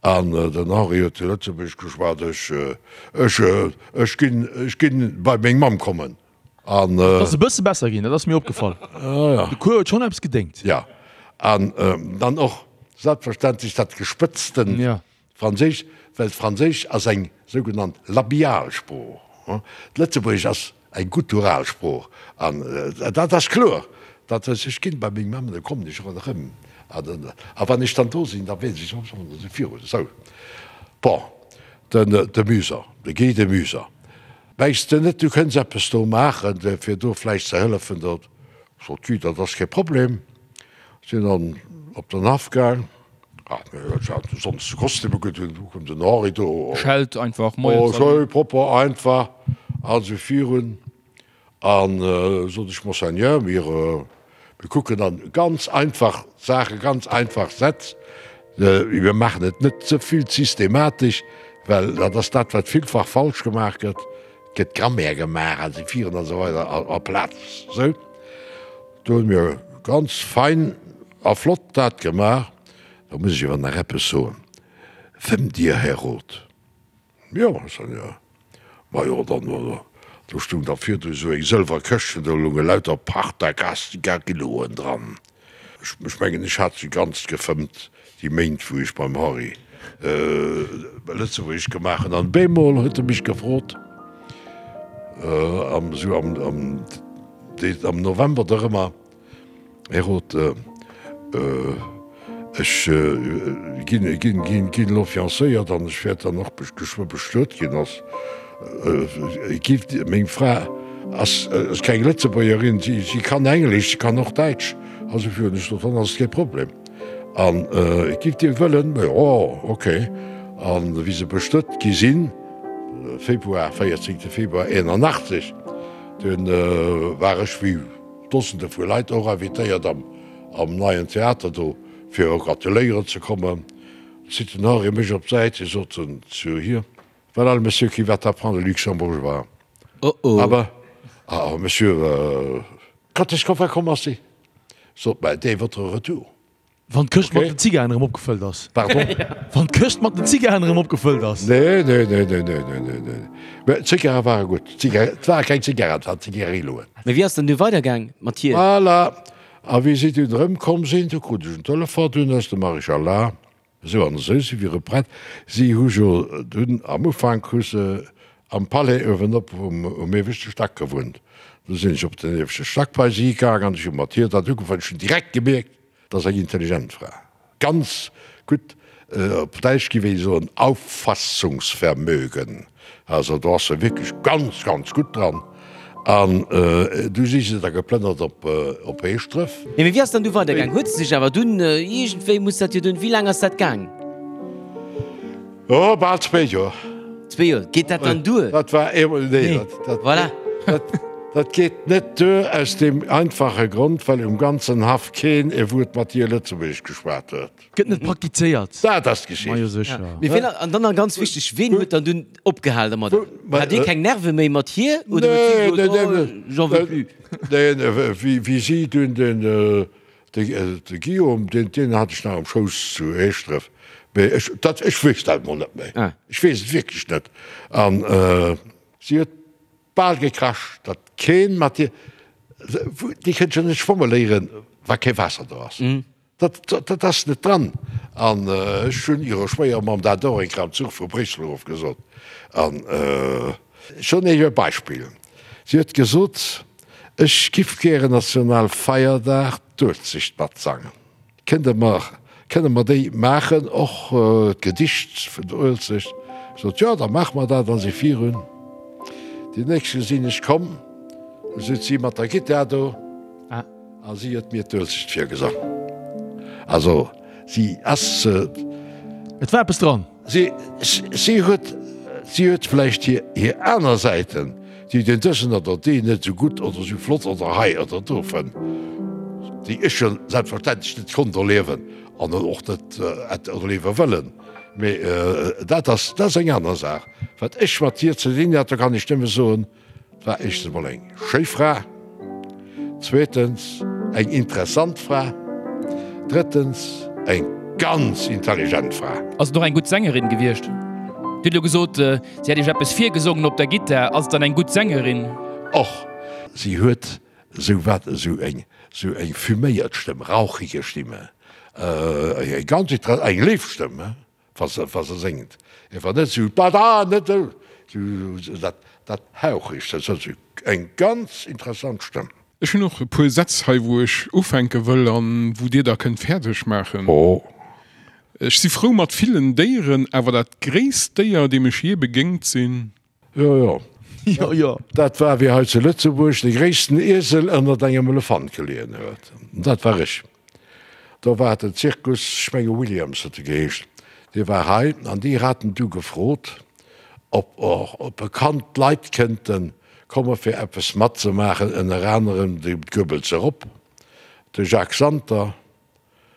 An den Henri huet Lëtzebuergesch geschwat, ech, ech, ech ginn, ech ginn bei meng Mamm kommen. An. Et ass e bësse besser ginn, dat ass mir opgefall. De Cours huet schonn eppes gedéngt. Jo, an dann och selbstverständlech dat gespëtzten Franséisch, well d'Franséisch ass eng sougenannt labial Sprooch. D'Lëtzebuergesch ass eng guttural Sprooch. An dat ass kloer, datt ech ginn bei meng Mamm, da kommen ech och erëm. A wann ech dann do sinn, da weess ech, esou virun. Esou, bon, den de Muser, de Guy de Muser. Mengs de net, du kënns eppes do maachen, fir do vläicht ze hëllefen? Da sot si, dat ass kee Problem. Sinn dann op den Haff gaang. Ach, mir haten sonst de Kostüm ugedoen, du koum den Henri do. Schellt einfach, Moien Oh, schön, propper, einfach, also virun. An sot ech, Monseigneur, mir, mir kucken dann ganz einfach Saachen, ganz einfach Sätz. Mir maachen et net ze vill systematesch, well dat ass dat, wat villfach falsch gemaach gëtt. Et gëtt Grammaire gemaach a si viren an esou weider aplaz esou. Do hunn mir ganz fein a flott dat gemaach. Da muss ech awer nach eppes soen, Fëmmt Dir, Här Roth? Jo, Monseigneur. Majo, dann, do stung da virdu esou eng sëlwer Këschtchen, do lounge lauter Partagas-Zigarilloen dran. Ech mengen, ech hat se ganz gefëmmt, déi Méint, wou ech beim Henri Lëtzebuergesch gemaach hunn. An bemol huet e mech gefrot, am, esou am, am, am November dorëmmer, Här Roth, ech ginn elo fiancéiert an ech wäert dann och geschwë bestuet ginn. Ass meng Fra ass keng Lëtzebuergerin, si kann Englesch, si kann och Däitsch. Also fir hunn ech gesot, dann ass et kee Problem. An giff Dir wëllen? Jo, ok. An wéi se bestuet gi sinn, Februar, 14 Februar 81, dunn war ech wéi Dosende vu Leit och invitéiert am am Neien Theater do fir gratuléieren ze kommen. Zitt den Henri mech op d'Säit, hie sot zu hir, Voilà le monsieur qui va t'apprendre le luxembourgeois. Oh oh. Aber, ah monsieur, quand est-ce qu'on va commencer? Sot, Ben, dès votre retour. Wann d'Këscht mat den Zigaren erëm opgefëllt ass. Pardon? Wann d'Këscht mat den Zigaren erëm opgefëllt ass. Nee, nee, nee, nee, nee, nee, nee, nee. Mä d'Zigare ware gutt. D'Zigare, et ware keng Zigaren, et waren Zigarilloen. Mä wéi ass dann du weidergaang mat hir? Voilà. A wéi si dunn erëmkomm sinn, du krut ech en Telefon dunn aus dem Maréchal La. Esou an esou si wiere prett. Si hu jo dunn am Ufank hu se am Palais uewenop um ieweschte Stack gewunnt. Du sinn ech op den ieweschte Stack bei si gaang an ech hu mat hir dat ugefaangen. Ech hunn direkt gemierkt, dat ass eng intelligent Fra, ganz gutt, op Däitsch géif ee soen Auffassungsvermögen, also do ass se wierklech ganz, ganz gutt dran. An du si se da geplënnert op Heeschdref. Nee, mee wéi ass dann du weidergaang? Huet se sech awer dunn, iergendwéi muss dat jo dunn, wéi laang ass dat gaang? Oh, bal zwéi Joer. Zwéi Joer, geet dat dann duer? Dat war eemol, nee, dat, dat, Voilà. dat, dat geet net duer aus deem einfache Grond, well um ganzen Haff keen e Wuert mat hir Lëtzebuergesch geschwat huet. Gëtt net praktizéiert. Dat ass d'Geschicht. Majo sécher. Mee wien, an dann nach ganz wichteg, ween huet dann dunn opgehal dermat? Hat Dir keng Nerve méi mat hir oder huet si Nee, gesot, nee, oh, nee, j'en veux plus? Nee, wéi, wéi si dunn den, De Guillaume, deen, deen hat ech nach am Schouss zu Heeschdref, mee ech, dat, ech weess dat emol net méi. Ech weess et wierklech net. An si huet bal gekrasch, datt keen mat hir, déi kënnt jo net schwamme léieren, wa kee Waasser do ass. Dat, dat ass net dran. An ech hunn hirer Schwéiermamm dat och eng Kéier am Zuch vu Bréissel erof gesot. An ech soen Iech e Beispill, Si huet gesot, Ech giff gären Nationalfeierdag d'Uelzecht matsangen. Kënnt der mer, kënne mer déi maachen, och d'Gedicht vun der Uelzecht? Ech sot, Jo, da maache mer dat a si virun. Déi nächste sinn ech komm, du sot si mat der Gittar do a si huet mir d'Uelzecht virgesang. Also si ass. Et war eppes dran. Si, si huet, si huet vläicht hir, hir aner Säiten, déi den dësen oder deen net esou gutt oder esou flott oder hei oder do fënnt. Déi ech jo selbstverständlech net konnt erliewen an och net hätt erliewe wëllen. Mee dat ass, dat ass eng aner Saach. Wat ech mat hir ze dinn hat, do kann ech nëmme soen, Et war éischtens emol eng schéi Fra, zweetens eng interessant Fra, drëttens eng ganz intelligent Fra. Ass et och eng gutt Sängerin gewiescht? Dir hutt elo gesot, si hätt Iech eppes virgesongen op der Gittar. Ass et dann eng gutt Sängerin? Och si huet esou wat, esou eng, esou eng fuméiert Stëmm, rauchige Stimme, eng ganz inter, eng léif Stëmm, wa se, wa se séngt. Ewer net esou da da, net esou, dat, dat hauchegt, dat ass eng ganz interessant Stëmm. Ech hunn och e puer Sätz hei, wou ech ufänke wëll an wou Dir da kënnt fäerdeg maachen. Oh. Ech si frou mat villen Déieren, awer dat gréisst Déier, deem ech jee begéngt sinn. Jo, jo. Jo, jo. Dat war, wéi hei zu Lëtzebuerg de gréissten Iesel ënnert engem Elefant geleeën huet. Dat war ech. Do war den Zirkus, ech menge Williams huet e geheescht, dee war hei an déi haten du gefrot, ob och bekannt Leit kënnte komme fir eppes matzemaachen, ënner anerem de Goebbels erop, de Jacques Santer,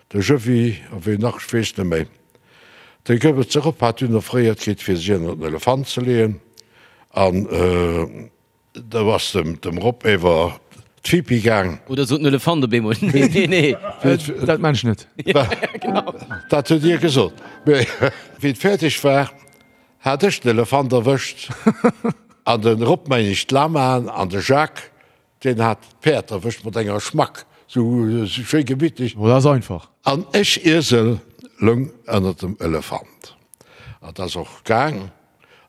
De Jëwi, a ween nach, ech weess net méi. De Goebbels erop hat dunn offréiert kritt, fir si ënnert den Elefant ze leeën, an do ass dem Rob ewer d'Fipi gaang. Oder sot den Elefant op eemol, Nee, nee, nee. Dat maan ech net. Dat huet hie gesot. Mee wéi et fäerdeg war, hat ech den Elefant erwëscht, an de Rob, meng ech, d'Lamaen, an de Jacques Deen hat d'Päerd erwëscht mat enger Schmack, sou schéi gemittlech. Oh, dat ass einfach. An ech, Iesel, loung ënnert dem Elefant. An dat ass och gaang.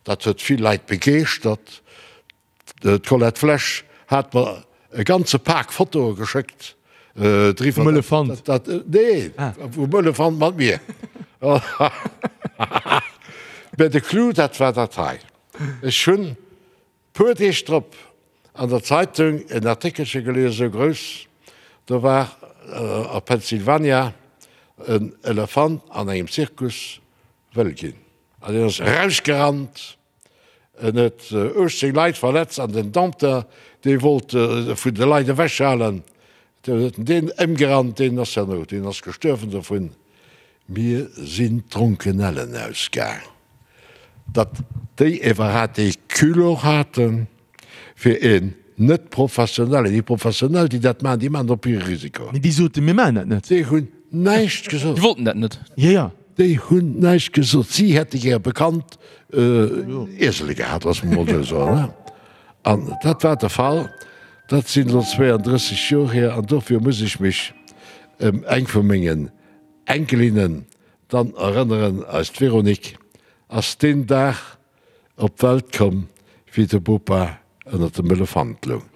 Dat huet vill Leit begeeschtert. D'Colette Flesch hat mer e ganze Pak Fotoe geschéckt driwwer. Vum Elefant? Dat, nee, vum Elefant mat mir. Mä de Clou, dat war dat hei. Ech hunn Puer Deeg drop an der Zeitung en Artikelche gelies, esou grouss, do war a Pennsylvania en Elefant an engem Zirkus wëll ginn an deen ass erausgerannt, en huet 18 Leit verletzt an den Dompteur, dee wollt e vun de Leit ewechhalen, deen huet en deen ëmgerannt, deen ass herno, deen ass gestuerwen dovun. Mir sinn d'Dronkenellen ausgaang, datt déi iwwerhat dee Culot haten, fir een net professionellen, déi Professionell, déi dat maachen, déi maachen dat op hire Risiko. Mee déi soten, mir maachen dat net. Déi hunn näischt gesot. Déi wollten dat net. Jo, jo. Déi hunn näischt gesot. Si hätte gär bekannt Iesele gehat, loosse mer emol esou soen. An dat war de Fall. Dat sinn elo 32 Joer hier an dofir muss ech mech ëm eng vu mengen Enkelinnen dann erënneren, eist Véronique ass deen Dag op d'Welt komm, wéi de Bopa ënnert dem Elefant loung.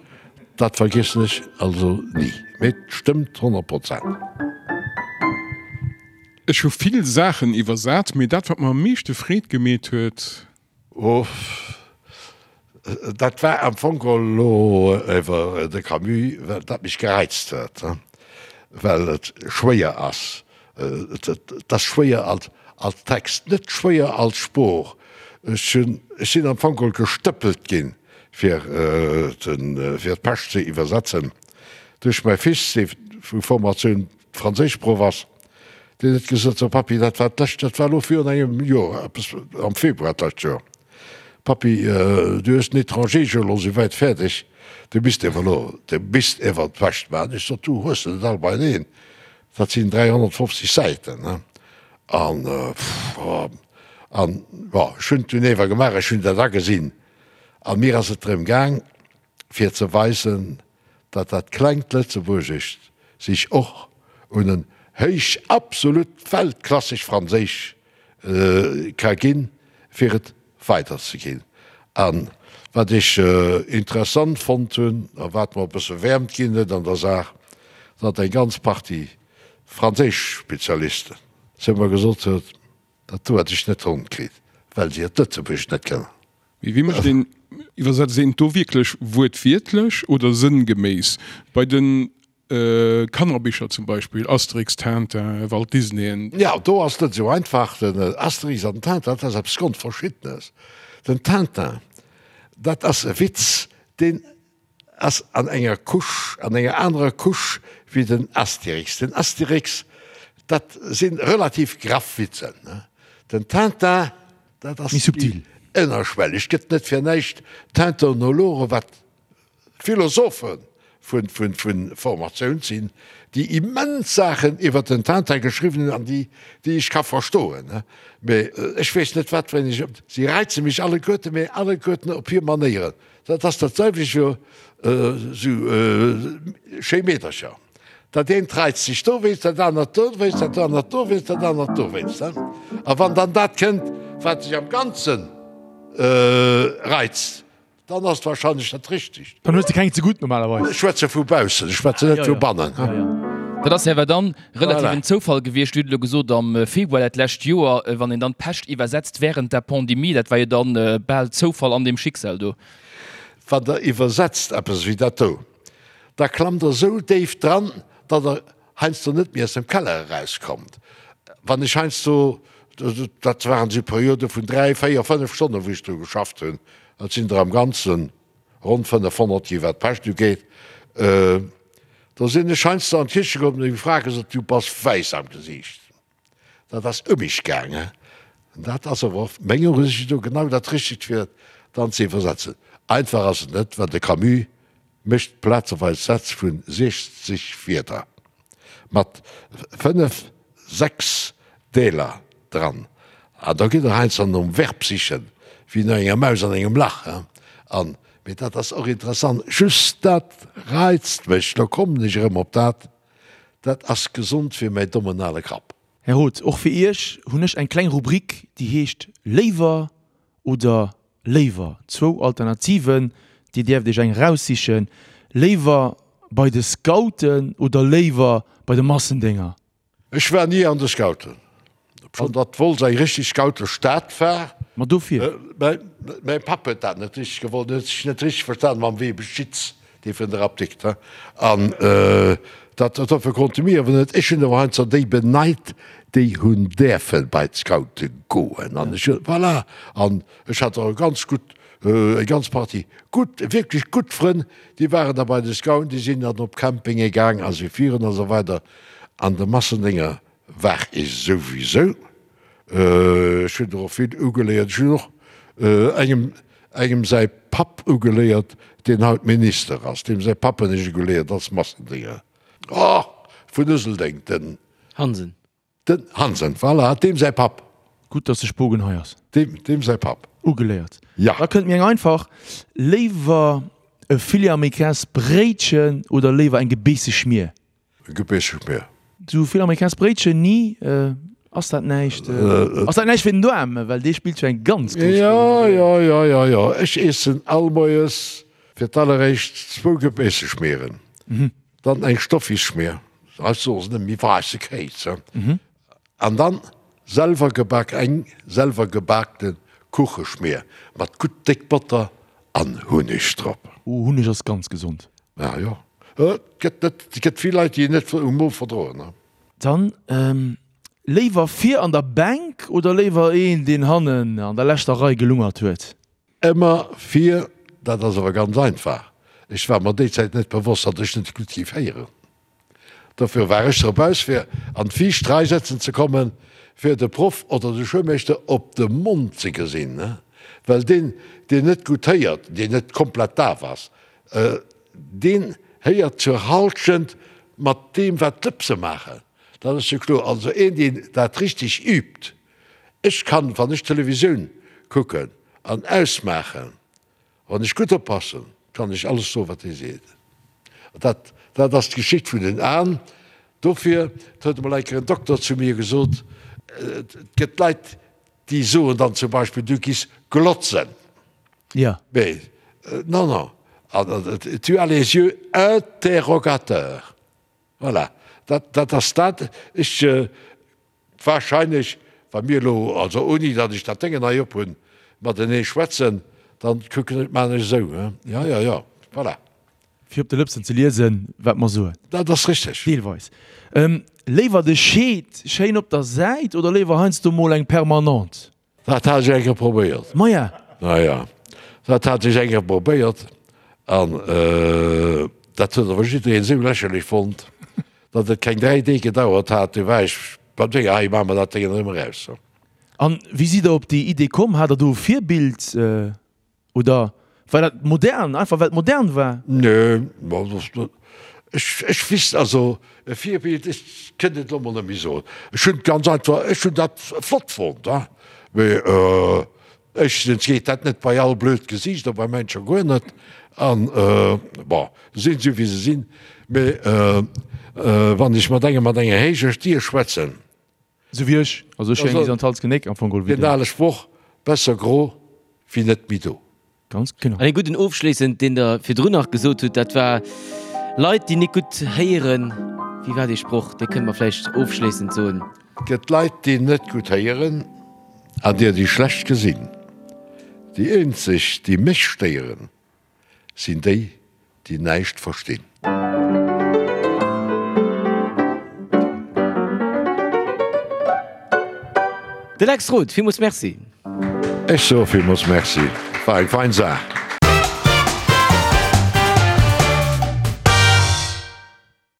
Dat vergiessen ech also ni, mee et stëmmt 100 Prozent. Ech hu vill Saachen iwwersat, mee dat wat mer am meeschte Freed gemeet huet, Uff, dat war am Fong elo iwwer de Camus, well dat mech gereizt huet, well et schwéier ass. Et ass schwéier als Text, net schwéier als Sprooch. Ech hunn, ech sinn am Fong gestëppelt ginn, fir fir d'Pescht ze iwwersetzen, duerch mäi Fils, dee vu Formatioun Franséischproff ass, deen huet gesot, So Pappi, dat war d'lescht, dat war elo virun engem Joer, eppes am Februar d'lescht Joer, Pappi, du hues den Étranger jo elo souwäit fäerdeg, du misst ewer elo, du misst ewer d'Wäscht maachen. Ech sot, Du, hues de net all beieneen, dat sinn 350 Säiten, ne? An, an, bon, ech hunn et dunn ewer gemaach, ech hunn dat agesinn a mir ass et drëm gaang, fir ze weisen, datt dat klengt Lëtzebuergescht sich och un en héich, absolut weltklasseg Franséisch ka ginn, fir et weiderzeginn. A wat ech interessant fonnt hunn a wat mer e bësse Wäermt ginn huet an der Saach, datt eng ganz Partie franséisch Spezialisten zu mer gesot huet, Dat do hätt ech net ronn kritt, well se et Lëtzebuergesch net kënnen. Mee wéi mécht een, iwwersetzt een et do wierklech wuertwiertlech oder sënngeméiss? Bei de Kannerbicher zum Beispill, Asterix, Tintin, Walt Disneyen. Jo, do ass et net esou einfach. Den Asterix an den Tintin, dat ass eppes Grondverschiddenes. Den Tintin, dat ass e Witz, deen. ass an enger Couche, an enger anerer Couche wéi den Astérix. Den Astérix, dat si relativ graff Witzen. Den Tintin, dat ass Méi subtil. Ënnerschwelleg. Gëtt net fir näischt Tintinologe, wat Philosophe vu Formatioun sinn, déi immens Saachen iwwer den Tintin geschriwwen hunn an déi, déi ech ka verstoen. Mee ech weess net, wat fir eng ech. Si reize mech alleguerten, mee alleguerten op hir Manéieren. Dat ass dat selwecht wéi esou schéi Meedercher. Dat eent reizt sech dowéinst, dat anert dowéinst, dat anert dowéinst, dat anert dowéinst. A wann dann dat kënnt, wat sech am Ganze reizt, Dann ass et wahrscheinlech dat Richtegt. Dann hues de keng ze gutt normalerweis. Ech schwätze vu baussen, ech schwätzen net vu bannen. Dat ass awer dann relativ en Zoufall gewiescht. Dir hutt elo gesot, am Februar dat lescht Joer, wann een dann d'Pescht iwwersetzt während der Pandemie, dat war jo dann bal Zoufall an dem Schicksal do. Wann Der iwwersetzt eppes wéi dat do, da klammt Der esou déif dran, datt Der heiansdo net méi aus dem Keller erauskommt. Wann ech heiansdo, dat waren esou Periode vun 3, 4, 5 Stonnen, wou ech dru geschafft hunn, dat sinn der am Ganze ronn 500 gi wat d'Pescht ugeet, do sinn ech heiansdo an d'Kiche komm an hunn eng Fra gesot, du bass wäiss am Gesiicht. Dat ass ëm mech gaangen. Dat ass awer och menger Usicht no genau dat Richtegt fir dann ze iwwersetzen. Einfach ass et net, well de Camus mécht plazeweis Sätz vu 60 Wierder mat 5, 6 Deeler dran. An da gitt Der heiansdo nom Verb sichen, wéi no enger Maus an engem Lach. An, mee dat ass och interessant, just dat reizt mech, lo kommen ech erëm op dat, Dat ass gesond fir mäi dommen ale Kapp. Här Roth, och fir Iech hunn ech eng kleng Rubrik, déi heescht Léiwer oder léiwer. Zwou Alternativen, Dir däerft Iech eng eraussichen. Léiwer bei de Scouten oder léiwer bei de Massendénger? Ech war ni an de Scouten. Obschonn datt Wolz eng richteg Scoutestad war. Ma dofir. Mäi Papp huet dat net richteg gewollt. En huet sech net richteg verstan mam Weber Schitz, dee vun der Apdikt. An dat dofir konnte mir awer net. Ech hunn awer heiansdo déi beneit, déi hunn däerfe bei d'Scoute goen. An ech hunn, voilà. An ech hat och e ganz gutt, eng ganz Partie gutt, wierklech gutt Frënn, déi waren da bei de Scouten, déi sinn dann op Campinge gaang a sou virun a sou weider. An de Massendénger war ech souwisou. Ech hunn der och vill ugeléiert. Ech hunn och engem, engem säi Papp ugeléiert, deen haut Minister ass. Deem säi Papp hunn ech ugeléiert als Massendénger. Oh, vun Useldeng, den. Hansen. Den Hansen, voilà, deem säi Papp. Gutt, dass de Spogen hei ass. Deem, deem säi Papp. Ugeléiert. Ja. Da kënnt mir eng einfach. Léiwer e Filet américains Bréitchen oder léiwer eng gebeesse Schmier? Gebeesse Schmier. Sou Filet américains Bréitchen, ni? Ass dat näischt, ass dat näischt fir den Doarm? Well dee spillt jo eng ganz grouss Roll. Jo, jo, jo, jo, jo. Ech iessen all Moies fir d'alleréischt zwou Gebeesse Schmieren. Dann eng Stoffisschmier, hei soe se net méi waisse Kéis, an dann selwer gebak, eng selwer gebakte Kucheschmier mat gutt déck Botter an Hunneg drop. Oh, Hunneg ass ganz gesond. Ah jo, et gëtt net, et gëtt vill Leit, déi en net um Mo verdroen. Dann léiwer vir an der Bänk oder léiwer een, deen hannen an der leschter Rei gelungert huet? Ëmmer vir, dat ass awer ganz einfach, ech war mer déi Zäit net bewosst, datt ech net gutt géif héieren. Dofir war ech drop aus, fir an d'viischt Rei sëtzen ze kommen, fir de Proff oder de Schoulmeeschter op de Mond ze gesinn, well deen, deen net gutt héiert, deen net komplett daf ass, deen héiert zur Halschent mat deem, wat d'Lëpse maachen. Dat ass jo kloer. Also een, deen dat richteg übt, Ech kann, wann ech Televisioun kucken an ausmaachen, wann ech gutt oppassen, kann ech alles soen, wat dee seet. Dat, dat ass d'Geschicht vun den Aen. Dofir, et huet emol eng Kéier en Dokter zu mir gesot, et gëtt Leit, déi soen dann zum Beispill, du giss glotzen. Ja. Mee non, non, tu as les yeux interrogateurs. Voilà, dat, dat ass dat. Ech. Wahrscheinlech, wa mir elo, also ouni datt ech dat Déngen hei op hunn, matenee schwätzen, dann kucken ech, maachen ech esou, he? Jo, jo, jo, voilà. Fir op de Lëpsen ze liesen, wat mer soen. Dat ass richteg. Deelweis. Léiwer de Scheed schéin op der Säit oder léiwer heiansdo mol eng Permanente? Dat hat ech eng Kéier probéiert. Maja. Naja, dat hat ech eng Kéier probéiert. An dat huet awer jiddereen esou lächerlech fonnt, datt et keng 3 Deeg gedauert hat, du war ech beim Dénger, hei maache mer dat Déngen erëm eraus. An wéi sidd Der op déi Idee komm? Hat Der do e Virbild oder war dat modern, einfach well et modern war? Nee, ech, ech wisst, also e Virbild, ech kënnt et elo mol net méi soen. Ech hunn ganz einfach, ech hunn dat flott fonnt, mee Éischtens geet dat net bei all blöd Gesiicht a bei mäin scho guer net. An, bon, se sinn esou wéi se sinn. Mee wann ech mat engem mat enger héijer Stier schwätzen. Esou wéi ech. Also ech hu eng bis an d'Hals genéck am Fong geholl wéi den. Den ale Sproch, Besser gro wéi net méi do. Ganz genau. An ee gudden ofschléissend, deen Der virdrun nach gesot hutt, dat war, Leit, déi nik gutt héieren, wéi war dee Sproch? Dee kënnt mer vläicht ofschléissend soen. Et gëtt Leit, déi net gutt héieren an der, déi schlecht gesinn. Déi eenzeg, déi mech stéieren, sinn déi, déi näischt verstinn. De Lex Roth, villmools Merci. Ech soe villmools Merci, war eng fein Saach.